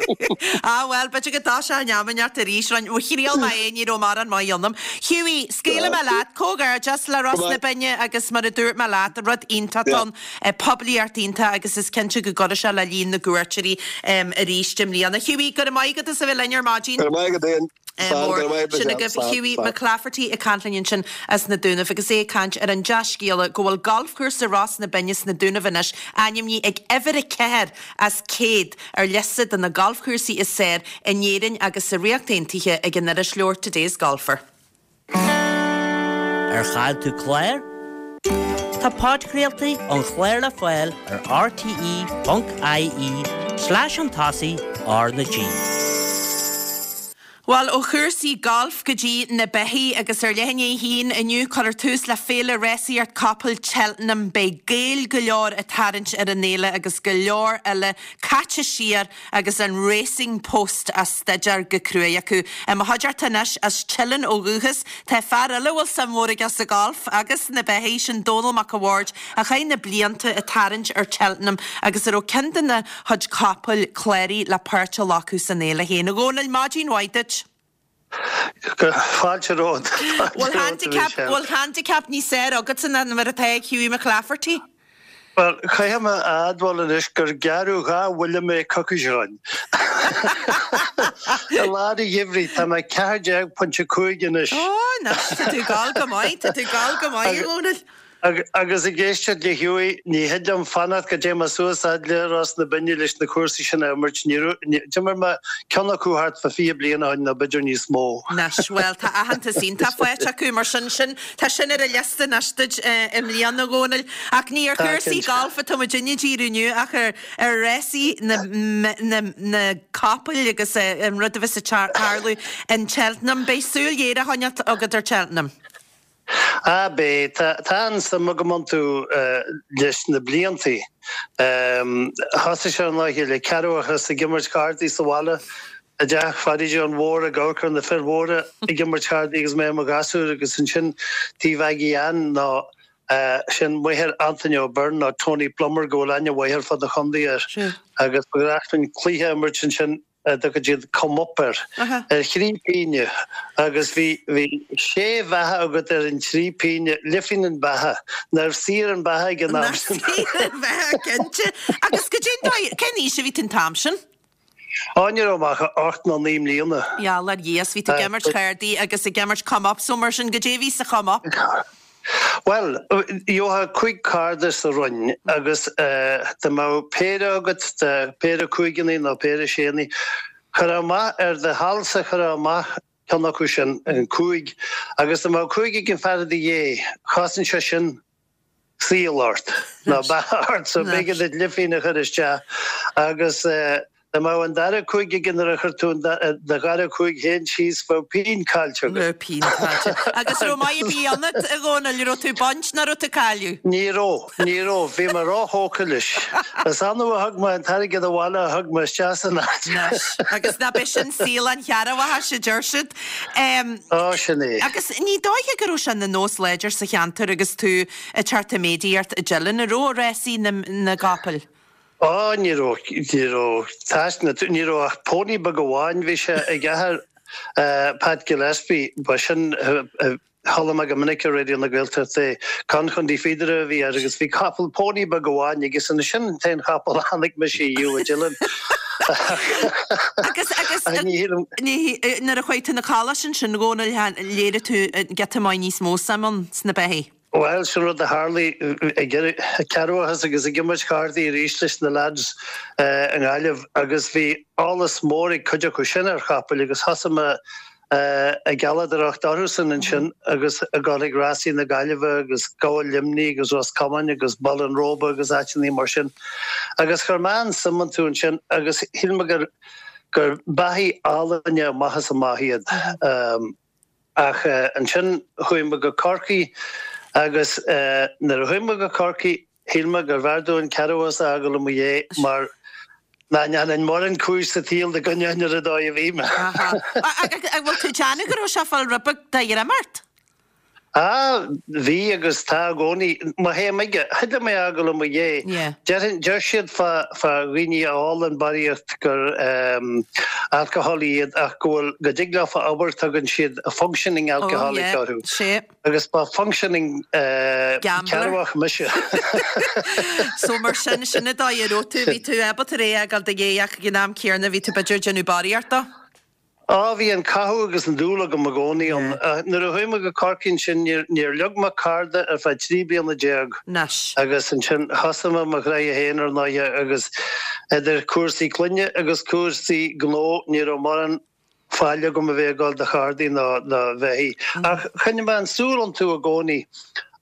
Á bhuel, b'fhéidir go dtoiseoidh an am ineacht arís, roinn, thriail mé é, ní raibh mórán maith ionam. Hughie, scaoilfidh mé leat, comhghairdeas le Ros na Binne agus mar a dúirt mé leat, rud iontach ann, poiblíocht iontach agus is cinnte go gcuirfidh sé le líon na gcuairteoirí arís i mbliana. Hughie, go raibh maith agat as a bheith linn ar maidin. Go raibh maith agat Ian. Slán, go raibh maith agat Sin Michelle. agaibh Slán, Hughie slán. McClafferty ag caint linn ansin as na Dúnaibh agus é ag caint ar an dea-scéala go bhfuil galfchúrsa Ros na Binne sna Dúnaibh anois ainmnithe ag uimhir 4 as 100 ar liosta de na galfchúrsaí is fearr in Éirinn agus sa Ríocht Aontaithe ag an iriseoir Today's Golfer. Ar chaill tú clár? Tá podchraoltaí an chláir le fáil ar rte.ie slash chun tosaigh R na G. Bhuel, ó chúrsaí gailf go dtí na beithígh agus ar leath i ndiaidh a haon inniu cuirfear tús le Féile Rásaíocht Capall Cheltenham. Beidh Gaeil go leor ag tarraingt ar an fhéile agus go leor eile caite siar agus an Racing Post á staidéar go cruaidh acu. I mo chuideachta anois, as Teileann ó dhúchas, tá fear eile a bhfuil suim mhór aige sa gholf agus sna beithígh, sin Dónal Mac a' Bhaird, a chaith na blianta ag tarraingt ar Cheltenham agus a raibh ceann de na chuid capaill cláraithe le páirt a ghlacadh san fhéile féin. A Dhónaill, maidin mhaith duit. Fáilte romhat. Bhfuil handicap, bhfuil handicap níos fearr agatsa ná mar atá ag Hughie McClafferty? Bhuel, caithfidh mé a admháil anois gur gearradh dhá bhuille mé coicís ó shin. I lár an gheimhridh, tá mé 14.5 anois. Ó, anois, tá tú ag gabháil go maith, tá tú ag gabháil go maith, a Dhónaill. Agus ag éisteacht le Hughie, ní thig liom fanacht go dté mé suas fhad le Ros na Binne leis na cúrsaí sin a imirt. Ní raibh, d'imir mé ceann acu thart fá 20 bliain ó shin nó b'fhéidir níos mó. Anois, bhuel, tá aitheantas iontach faighte acu, mar sin, sin, tá sin ar an liosta anois duit i mbliana, a Dhónaill. Ach ní ar Tá, chúrsaí cinnte. gailf atá muidinne ag díriú inniu ach ar, ar rásaí na, na, na capaill agus an rud a bheas ag tarlú in Cheltenham. Beidh súil ghéar á choinneáil agat ar Cheltenham. Ah, beidh. Tá an-suim agam iontu leis na bliantaí. Thosaigh sé an lá le ceathramhachas ag imirt cártaí sa bhaile i dteach Pháidí John Mhór ag amharc ar na fir mhóra ag imirt cártaí agus mé i mo ghasúr agus ansin taobh Aggie Ann nó sin máthair Anthony O'Byrne nó Tony Plummer go bhfuil aithne mhaith ar fud an chontae air agus ba ghnách linn cluiche a imirt ansin a dtugann siad come up air, ar thrí pínne agus bhí, bhí sé bheatha agat ar an trí pínne, leathphingin an beatha, nárbh saor an beatha ag an am Nach sin. saor an bheatha, cinnte. Agus goidé an dóigh, cén aois a bhí tú an t-am sin? Á, ní raibh mé ach ocht nó naoi mbliana. Gheall ar Dhia, 's bhí tú ag imirt chárdaí agus ag imirt come up, so mar sin, goidé a bhí sa chome up? Bhuel, gheofá 5 cárta sa roinn agus dá mbeadh péire agat de péire cúigeannaí nó péire séannaí, chuirfeá amach ar do sheal-sa chuirfeá amach ceann acu sin, an cúig, agus dá mbeadh cúig ag an fear i do dhiaidh, chosain sé sin saol ort, nó beatha ort, so b'éigean duit leathphingin a chur isteach agus Dá mbeadh an dara cúig aige nuair a chuir tú do dhara cúig féin síos, bheadh pingin caillte agat. Bheadh pingin caillte. Agus raibh maith ar bith ionat, a Dhónaill? Raibh tú ag baint nó raibh tú ag cailleadh? Ní raibh, ní raibh. Bhí mé róthógtha leis. Is annamh a thug mé an t-airgead abhaile a thug mé isteach san áit. Anois, agus ná b'é sin saol an chearrbhachais, a deir siad. Á, sin é. Agus ní dóiche go raibh sé ina nós láidir sa cheantar agus tú ag teacht i méadaíocht i dTeileann, an raibh, rásaí na gcapall? Á, ní raibh, ní raibh taisne, ní raibh ach pony beag amháin, bhí sé ag athair Pat Gillespie, ba sin. Chuala mé go minic ar Raidió na Gaeltachta é. Con Chondaí Phíodaire a bhí air agus bhí capall pónaí beag amháin aige san sin an t-aon chapall a chonaic mise ariamh a Dylan. Agus, agus, ní, nuair a chuaigh tú 'na coláiste ansin, a Dhónaill, léirigh tú giota maith níos mó suim ann sna beithígh. Bhuel, sin rud a tharlaigh ag cearrbhachas agus ag imirt chártaí arís leis na lads i nGaillimh agus bhí eolas mór ag cuid acu sin ar chapaill agus thosaigh mé ag gealladóireacht orthusan ansin agus ag dul ag rásaí na Gaillimhe agus Gabhal Luimnigh agus Ros Comáin agus Baile an Róba agus áiteanna mar sin. Agus chuir mé an-suim iontu ansin agus shíl mé gur gur beithígh álainne amach is amach iad. Ach ansin chuaigh mé go Corcaigh agus nuair a chuaigh mé go Corcaigh, Shíl mé gurbh fhearr domh an cearrbhachas a fhágáil i mo dhiaidh mar nach ndéanfainn mórán cúis sa tsaol dá gcoinneoinn ar an dóigh a bhí mé. Aha. An bhfuil tú ag déanamh go raibh sé ag fáil rud beag de dhroim ort? Ah, bhí agus tá i gcónaí. Má théim aige, thig liom é a fhágáil i mo dhiaidh. Yeah. Déarfainn, deir siad fá, fá dhaoine a ólann barraíocht gur alcoholic iad ach go bhfuil, go dtig leofa obair, tugann siad a functioning Oh, alcoholic yeah. orthu. Sea. Agus ba functioning Gambler. cearrbhach mise. So mar sin, sin an dóigh a raibh tú, bhí tú ábalta é a fhágáil i do dhiaidh ach ag an am céanna bhí tú b'fhéidir ag déanamh barraíocht dó. Á, bhí an cathú agus an dúil agam i gcónaí ann. Nuair a chuaigh mé go Corcaigh ansin níor, níor leag mé cárta ar feadh 13 bliana. Anois. Agus ansin thosaigh mé mo ghnaithe féin ar ndóighe agus idir cúrsaí clainne agus cúrsaí gnó ní raibh mórán faill agam a bheith ag dul do chártaí ná do bheithígh. Ach choinnigh mé an súil iontu i gcónaí.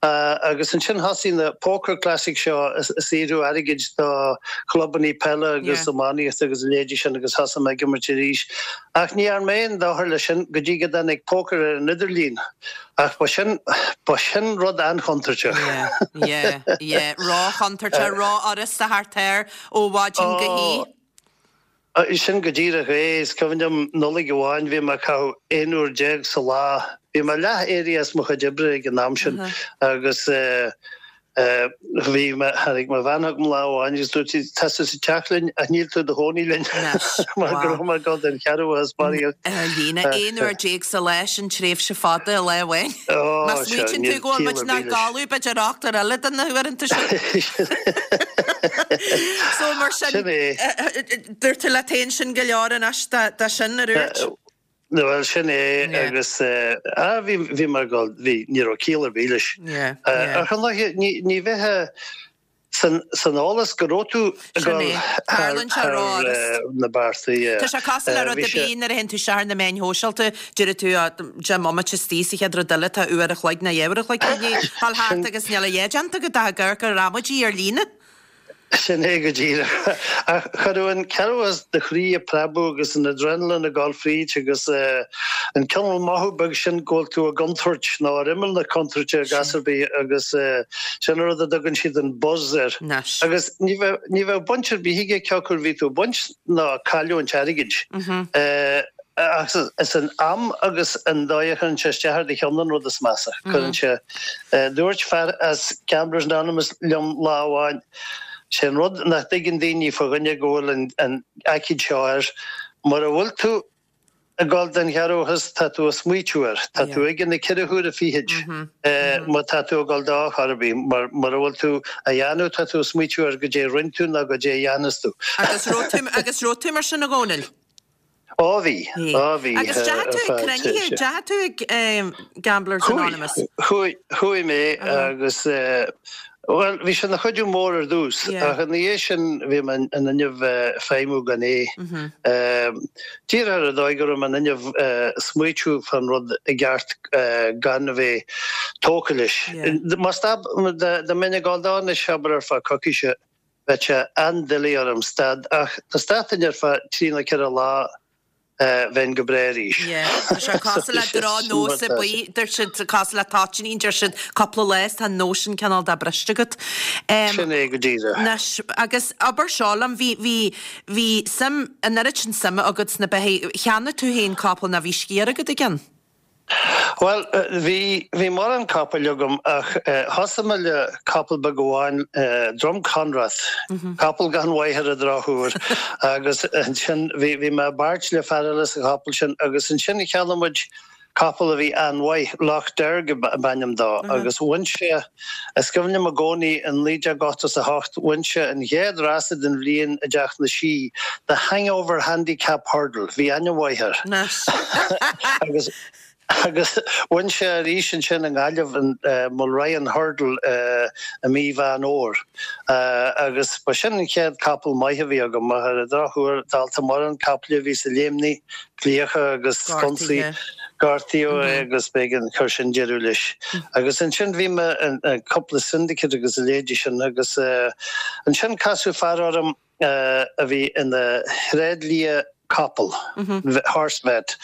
Agus ansin thosaigh na Poker Classic seo ag saothrú airgid do chlubannaí peile agus iománaíochta agus a leithéidí sin agus thosaigh mé ag imirt arís. Ach ní dhearna mé aon dochar leis sin go dtí go dtáinig pócar ar an idirlíon. Ach ba sin, ba sin rud an-chontúirteach. Yeah, yeah, yeah. Ró-chontúirteach, ró-fhurasta thart air ó mhaidin go hoíche. Sin go díreach é. Is cuimhin liom Nollaig amháin bhí mé ag caitheamh 11 uair sa lá. Bhí mé leath éirithe as mo chuid oibre ag an am sin agus bhí mé, tháinig mo bhean chugam lá amháin agus dúirt sí, tá tú sa teach linn ach níl tú i do chónaí linn mar go raibh mé ag dul den chearrbhachas barraíocht. Ar líne, 11 uair sa lá, sin tréimhse fada i lá amháin. Má smaoitíonn tú go bhfuil muid inár gcodladh b'fhéidir ochtar eile de na huaireanta sin. So mar sin, Sin é. dúirt tú leat féin sin go leor anois de sin, a dúirt? Bhuel, sin é Yeah. agus ah, bhí, bhí mar go, bhí, ní raibh ciall ar bith leis. Yeah, yeah. Ach ar ndóigh, ní, ní bheifeá san, san eolas go raibh tú ag Sin dul é. thar, Tarlaíonn sé thar ró-fhurast. na bearta, yeah. Tá sé cosúil le rud Bhí ar sé, bith nuair a théann tú isteach ar na meáin shóisialta, deireann tú, ah, 10 mbomaite istigh sa chéad rud eile, tá uair a chloig nó dhá uair a chloig i ndiaidh dhul thart sin, agus níl a dhath déanta agat ach ag amharc ar amaidí ar líne. Sin é go díreach. Ach chuireadh an cearrbhachas do chroí ag preabadh agus an adrenaline ag dul fríd agus an cineál mothú beag sin go bhfuil tú i gcontúirt nó ar imeall na contúirte i gcás ar bith agus sin an rud a dtugann siad an buzz air. Anois. Agus ní bheadh, ní bheadh baint ar bith aige cé acu a bhí tú ag baint ná ag cailliúint airgid. Ach is an am agus an dóigh a chuireann sé isteach ar do cheann an rud is measa. Cuireann sé. Dúirt fear as Gamblers Anonymous liom lá amháin, sé an rud nach dtuigeann daoine fá dhuine go bhfuil an aicíd seo air, mura bhfuil tú ag dul den chearrbhachas, tá tú ag smaoitiú air. Tá tú aige na ceithre huaire fichid má tá tú ag dul dó chor ar bith. Mar mura bhfuil tú á dhéanamh, tá tú ag smaoitiú ar goidé a rinne tú nó goidé a dhéanfas tú. Agus raibh tú mar sin a Dhónaill? Á bhí, á bhí. Agus deachaigh tú ag cruinnithe, deachaigh tú ag Gamblers Anonymous? Chuaigh, chuaigh mé agus, bhuel, bhí sé ina chuidiú mór ar dtús ach ina dhiaidh sin bhí mé in innimh feidhmiú gan é. Díreach ar an dóigh go raibh mé in innimh smaoitiú fán rud i gceart gan a bheith tógtha leis. Má stop, dá mbeinn ag dul dó anois, abair ar feadh coicíse, Bheadh sé an-doiligh orm stad ach dá stadfainn ar feadh trí nó ceithre lá bheinn go breá arís. Yeah, tá sé cosúil le drochnós ar bith, deir siad, cosúil le toitíní, deir siad cúpla lá is tá an nós sin cineál de briste agat. Sin é go díreach. Anois, agus abair seo liom, bhí, bhí, bhí suim, an oiread sin suime agat sna beithígh, cheannaigh tú féin capall nó bhí sciar agat i gceann? Bhuel, bhí, bhí mórán capaill agam ach thosaigh mé le capall beag amháin, Drumconrath, capall gan mhaith ar an drochuair agus ansin bhí, bhí mé i bpáirt le fear eile sa chapall sin agus ansin cheannaigh muid. Capall a bhí an-mhaith, Loch Derg ab ainm dó, agus bhain sé, is cuimhin liom i gcónaí, in 1988, bhain sé an chéad rása den bhliain i dTeach na Sí, The Hangover Handicap Hurdle, bhí ainm mhaith air. Agus agus bhain sé arís ansin i nGaillimh an Mulryan Hurdle i mí Mheán Fhómhair. Agus ba sin an chéad capall maith a bhí agam, ach ar an drochuair, dálta mórán caiple a bhí sa léimnigh, Cliacha agus sconsaí. Gortaíodh é agus b'éigean chuir sin deireadh leis. Agus ansin bhí mé in cúpla syndicate agus a leithéidí sin agus ansin casadh fear orm a bhí ina thréidlia capall, horse vet,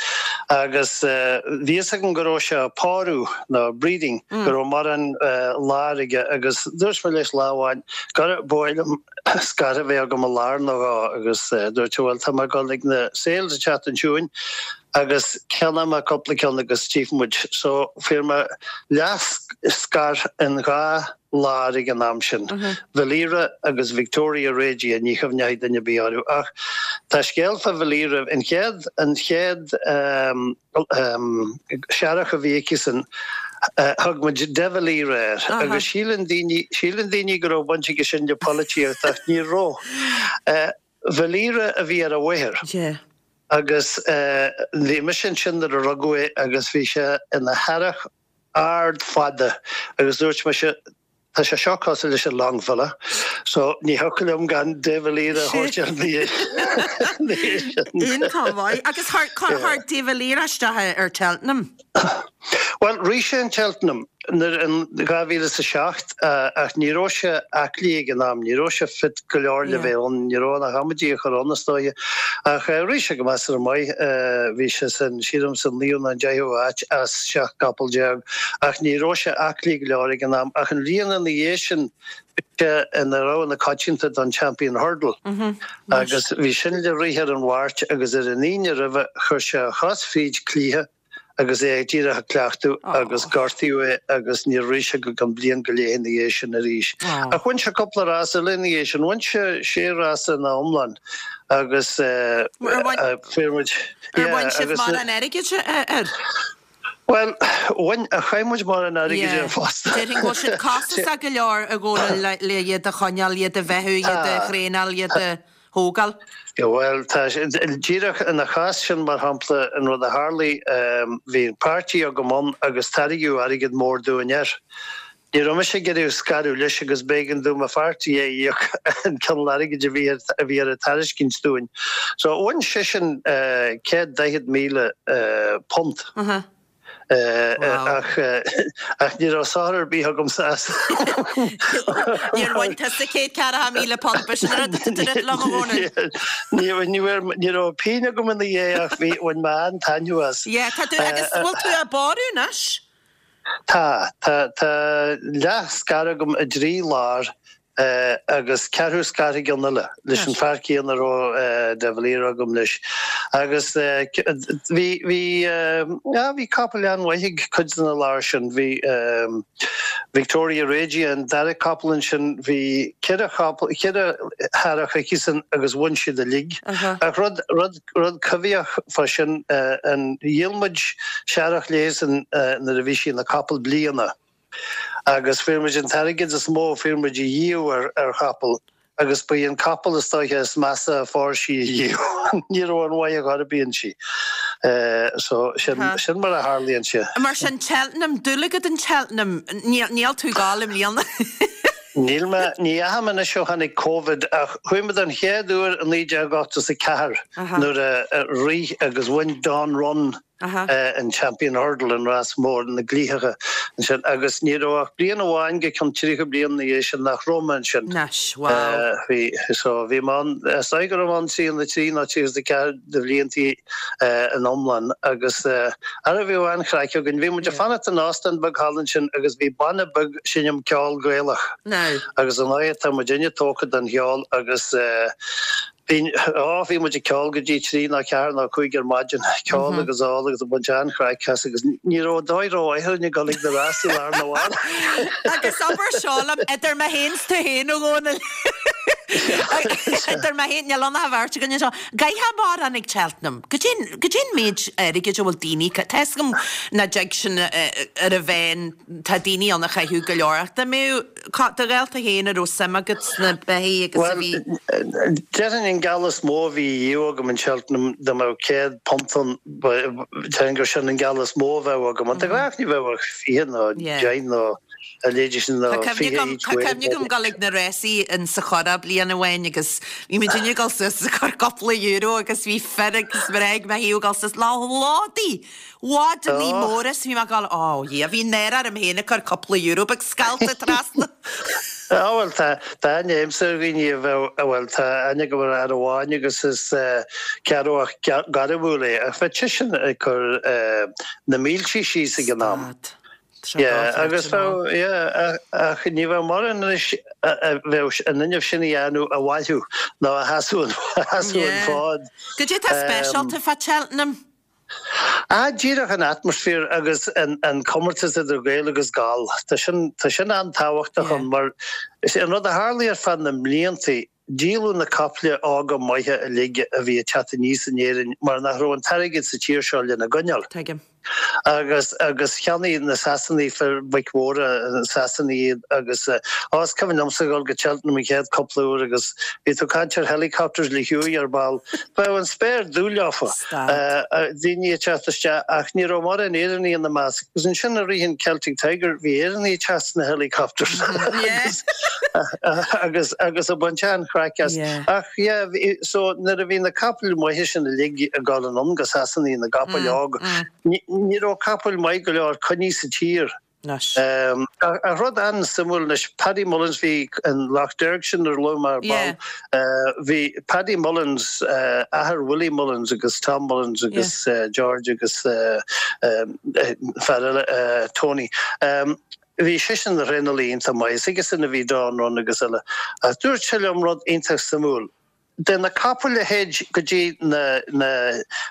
agus bhí fhios agam go raibh sé ag pórú nó breeding, go raibh mórán láir aige agus dúirt mé leis lá amháin gur ba mhaith liom scair a bheith agam i lár nó dhó agus dúirt sé bhuel tá mé ag dul ag na sales an tseachtain seo chugainn agus ceannóidh mé cúpla ceann agus tchífidh muid. So fuair mé leath scair in dhá lár ag an am sin, Valira agus Victoria Regia, ní chuimhneoidh duine ar bith orthu ach tá scéal fá Valira, an chéad, an chéad, Searrach a bhí aici-san, thug muid De Valera air agus síleann daoine, síleann daoine go raibh baint aige sin le polaitíocht ach ní raibh. Valera a bhí ar a mháthair agus bhí mise ansin nuair a rugadh é agus bhí sé ina shearrach ard fada agus dúirt mise, Tá sé seo cosúil leis an Longfella, so ní thiocfadh liom gan De Valera a thabhairt air ina dhiaidh sin. Iontach maith. Agus chuir De Valera isteach ar Cheltenham? Bhuel, rith sé an Cheltenham nuair in 2007 ach ní raibh sé aclaí ag an am, ní raibh sé fit go leor le bheith ann, ní raibh ach amaidí a chur ann is dóiche. Ach rith sé go measartha maith, bhí sé san, sílim, san naoú nó an deichiú háit as 17 gcapall. Ach ní raibh sé aclaí go leor ag an am. Ach an bhliain ina dhiaidh sin, bhí sé ina rogha na coitianta don Champion Hurdle. Agus bhí sin le rith ar an Mháirt agus ar an Aoine roimhe chuir sé a chos fríd cliath agus é díreach ag cleachtadh agus gortaíodh é agus níor rith sé go ceann bliain go leith ina dhiaidh sin arís. Ach bhain sé cúpla rás eile ina dhiaidh sin. Bhain sé sé rása ina iomlán agus fuair muid. Ar bhain sibh mórán airgid air? Bhuel, bhain, ach chaith muid mórán airgid air fosta. Déarfainn go bhfuil siad costasach go leor a Dhónaill le iad a choinneáil, iad a bheathú, iad a thraenáil, iad a thógáil. Bhuel, tá, díreach ina chás sin, mar shampla, an rud a tharlaigh, bhí páirtí agam ann agus tairgeadh airgead mór dúinn air. Ní raibh mise ag iarraidh scaradh leis agus b'éigean dom mo pháirtí a íoc an cineál airgid a bhí a bhí ar a tairiscint dúinn. So bhain seisean £140,000 ach ach ní raibh sochar ar bith agamsa as. Níor bhain tusa £140,000, b'shin an rud atá tú ag rá liom, a Dhónaill. Ní raibh ní raibh pingin agam ina dhiaidh ach bhí bhain mé an-taitneamh as. Yeah, tá tú agus bhfuil tú á bpórú anois? Tá. Tá, tá leath scair agam i dtrí lár agus ceathrú scair i gceann eile leis an fear céanna a raibh De Valera agam leis. Agus bhí, bhí, ah, bhí capaill an-mhaith ag cuid de na láir sin. Bhí Victoria Regia, an dara capall ansin, bhí ceithre chapall, ceithre shearrach aici-san agus bhain siad uilig. Ach rud, rud, Rud coimhthíoch fá sin, an, dhíol muid searrach léi-san nuair a bhí sí ina capall bliana agus fuair muid an t-airgead is mó a fuair muid ariamh ar ar chapall agus ba í an capall is dóiche is measa a phóir sí ariamh. Ní raibh aon mhaith ar chor ar bith inti. So sin, sin mar a tharlaíonn sé. Mar sin, Cheltenham, dúil agat in Cheltenham, níl tú ag gabháil i mbliana. Níl mé, ní dheachaigh mé anois ó tháinig Covid ach chuaigh mé don chéad uair i 1984 nuair a rith agus bhain Dawn Run an Champion Hurdle, an rás mór na gcliathacha ansin agus ní raibh ach bliain amháin go ceann 30 bliain ina dhiaidh sin nach raibh mé ansin. Anois, wow. Bhí, so bhí mé ann, is dóigh go raibh mé ann 33 nó 34 de bhliantaí in iomlán agus ara bhíodh an-chraic againn. Bhí muid ag fanacht in óstán beag thall ansin agus bhí banna beag ag seinm ceol Gaelach agus ar ndóigh tá muidinne tógtha don cheol agus bhí, á, bhí muid ag ceol go dtí trí nó ceathair nó cúig ar maidin, ceol agus ól agus ag baint an-chraic as agus ní raibh dóigh rómhaith orainn ag dul ag na rásaí lá arna mhárach. Agus abair seo liom, idir mé féin 's tú féin, a Dhónaill. Idir mé féin, níl ann ach an bheirt againn anseo. Gcaithfeá mórán ag Cheltenham. Goidé goidé an méid airgid a bhfuil daoine, tá fhios agam nach dtig sin ar a mheán, tá daoine ann a chaitheadh go leor ach dá mbeadh, do ghaolta féin a raibh suim agat sna beithígh agus a bhí. Bhuel, déarfainn an geall is mó a bhí riamh agam in Cheltenham dá mbeadh £100 ann, déarfainn gur sin an geall is mó a bheadh agam. Ach de ghnáth ní bheadh ach 20 nó 10 nó a leithéidí sin nó Tá 20 cuimhne agam, each tá way. cuimhne agam dul ag na rásaí in sa Churrach bliain amháin agus bhí muid ag dul suas ag cur cúpla euro agus bhí fir agus mná ag mo thaobh ag dul suas le lódaí, bhádannaí Oh. móra is bhí mé ag dul, oh yeah, bhí náire orm féin ag cur cúpla euro beag scallta trasna. Á bhuel tá, tá aithne agamsa ar dhaoine a bheadh, bhuel tá aithne agam ar fhear amháin agus is Ceatharlach gairmiúil é ach bheadh seisean ag cur na mílte síos ag an am. Stad. Tá sé Yeah, dochreidte agus ná. bheadh, yeah, ach ní bheadh mórán anois a bheadh an fhuinneamh sin a dhéanamh a bhailiú nó a sheasamh an, a sheasamh an Yeah. fód. Goidé tá speisialta fá Cheltenham? Ah, díreach an atmaisféar agus an, an comórtas idir Gael agus Gall. Tá sin, tá sin an-tábhachtach Yeah. ann mar is é an rud a tharlaigh ar feadh na mbliantaí, Díoladh na caiple óga maithe uilig a bhí ag teacht aníos in Éirinn mar nach raibh an t-airgead sa tír seo lena gcoinneáil. Tuigim. Agus, agus cheannaigh na Sasanaigh fir boic mhóra, na Sasanaigh iad agus, á, is cuimhin liomsa a dhul go Cheltenham an chéad cúpla uair agus bhí tú ag caint ar helicopters le huaigh ar ball. Bheadh an spéir dubh leofa, daoine ag teacht isteach ach ní raibh mórán Éireannaigh ina measc. Agus ansin i rith an Celtic Tiger bhí Éireannaigh ag teacht sna helicopters agus agus agus ag baint an-chraic as. Ach yeah bhí so nuair a bhí na capaill maithe sin uilig ag dul anonn go Sasana na gcapaill óg ní ní raibh capaill maith go leor coinnithe sa tír. Anois. Ach rud an-suimiúil anois, Paddy Mullins, bhí an Lough Derg sin ar luaigh mé ar ball, bhí Paddy Mullins, athair Willie Mullins agus Tom Mullins agus George agus fear eile, Tony, bhí seisean ina thraenálaí iontach maith, is aigesean a bhí Dawn Run agus eile. Ach dúirt sé liom rud iontach suimiúil, de na capaill a théid go dtí na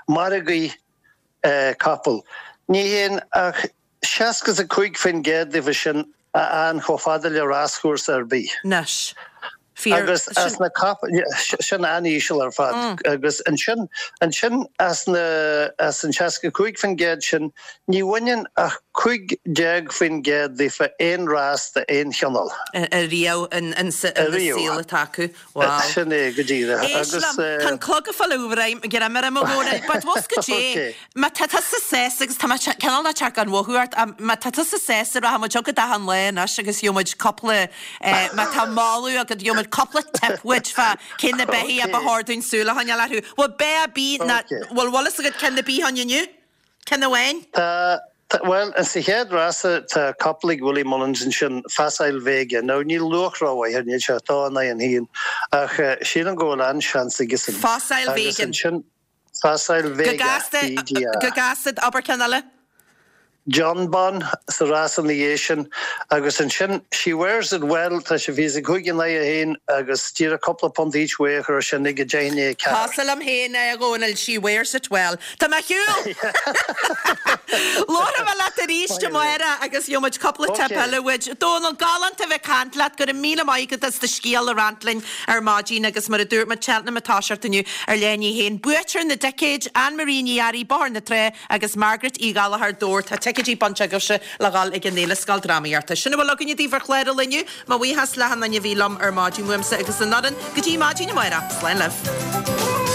margaí capall, ní théann ach 65% díobh sin a fhaigheann chomh fada le ráschúrsa ar bith. Anois. Fíor. Agus as na capaill, sin an-íseal ar fad. Agus ansin, ansin as na, as an 65% sin, ní bhaineann ach 15% daofa aon rás d'aon chineál. Ariamh in sa saol atá acu. Wow. Sin é go díreach. Éist Agus. liom, tá an clog ag fáil greim orm a Dhónaill, but bhfuil 's goidé, má tá tusa sásta agus tá mé cineál ag teacht gan mhothú ort, má tá tusa sásta rachaidh muid chugat achan lá anois agus gheobhaidh muid cúpla, má tá moladh agat gheobhaidh muid cúpla tip uait fá cé na beithígh a ba chóir dúinn súil a choinneáil orthu. Bhfuil beith ar bith ná, bhfuil bhfuil fhios agat ceann ar bith ann inniu? Ceann amháin? Tá, bhuel, sa chéad rása tá capall ag Willie Mullins ansin, Facile Vega. Now níl luach rómhaith air, níl sé ach dó in aghaidh an haon, ach sílim go bhfuil an-seans aigesean. Facile Agus Vegan. ansin, Facile Go Vega, gasta, V-E-G-A. go gasta, abair ceann eile. Jonbon sa rás ina dhiaidh sin agus ansin She Wears It Well, tá sé 25 in aghaidh a haon agus díreach cúpla punt each way a chur ar sin ag 10 i ndiaidh a 4. Cosúil liom féin é, a Dhónaill, She Wears It Well. Tá mé ar shiúl! Labharfaidh mé leat arís amárach agus gheobhaidh muid cúpla tip eile uait. Dónal, galánta a bheith ag caint leat, go raibh míle maith agat as do scéal a roinnt linn ar maidin agus mar a dúirt muid, Cheltenham ag toiseacht inniu ar leath i ndiaidh a haon. Buaiteoir na dticéid, Anne Marie Ní Fhearraigh, Bóthar na Trá, Agus Margaret Uí Ghallchóir, Dobhar, tá ticéidí bainte agaibhse le dhul ag an Fhéile Scoildrámaíochta. Sin a bhfuil againne daoibh ar chlár an lae inniu. Mo bhuíochas le achan duine a bhí liom ar maidin uaimse agus an fhoireann. Go dtí maidin amárach, slán libh.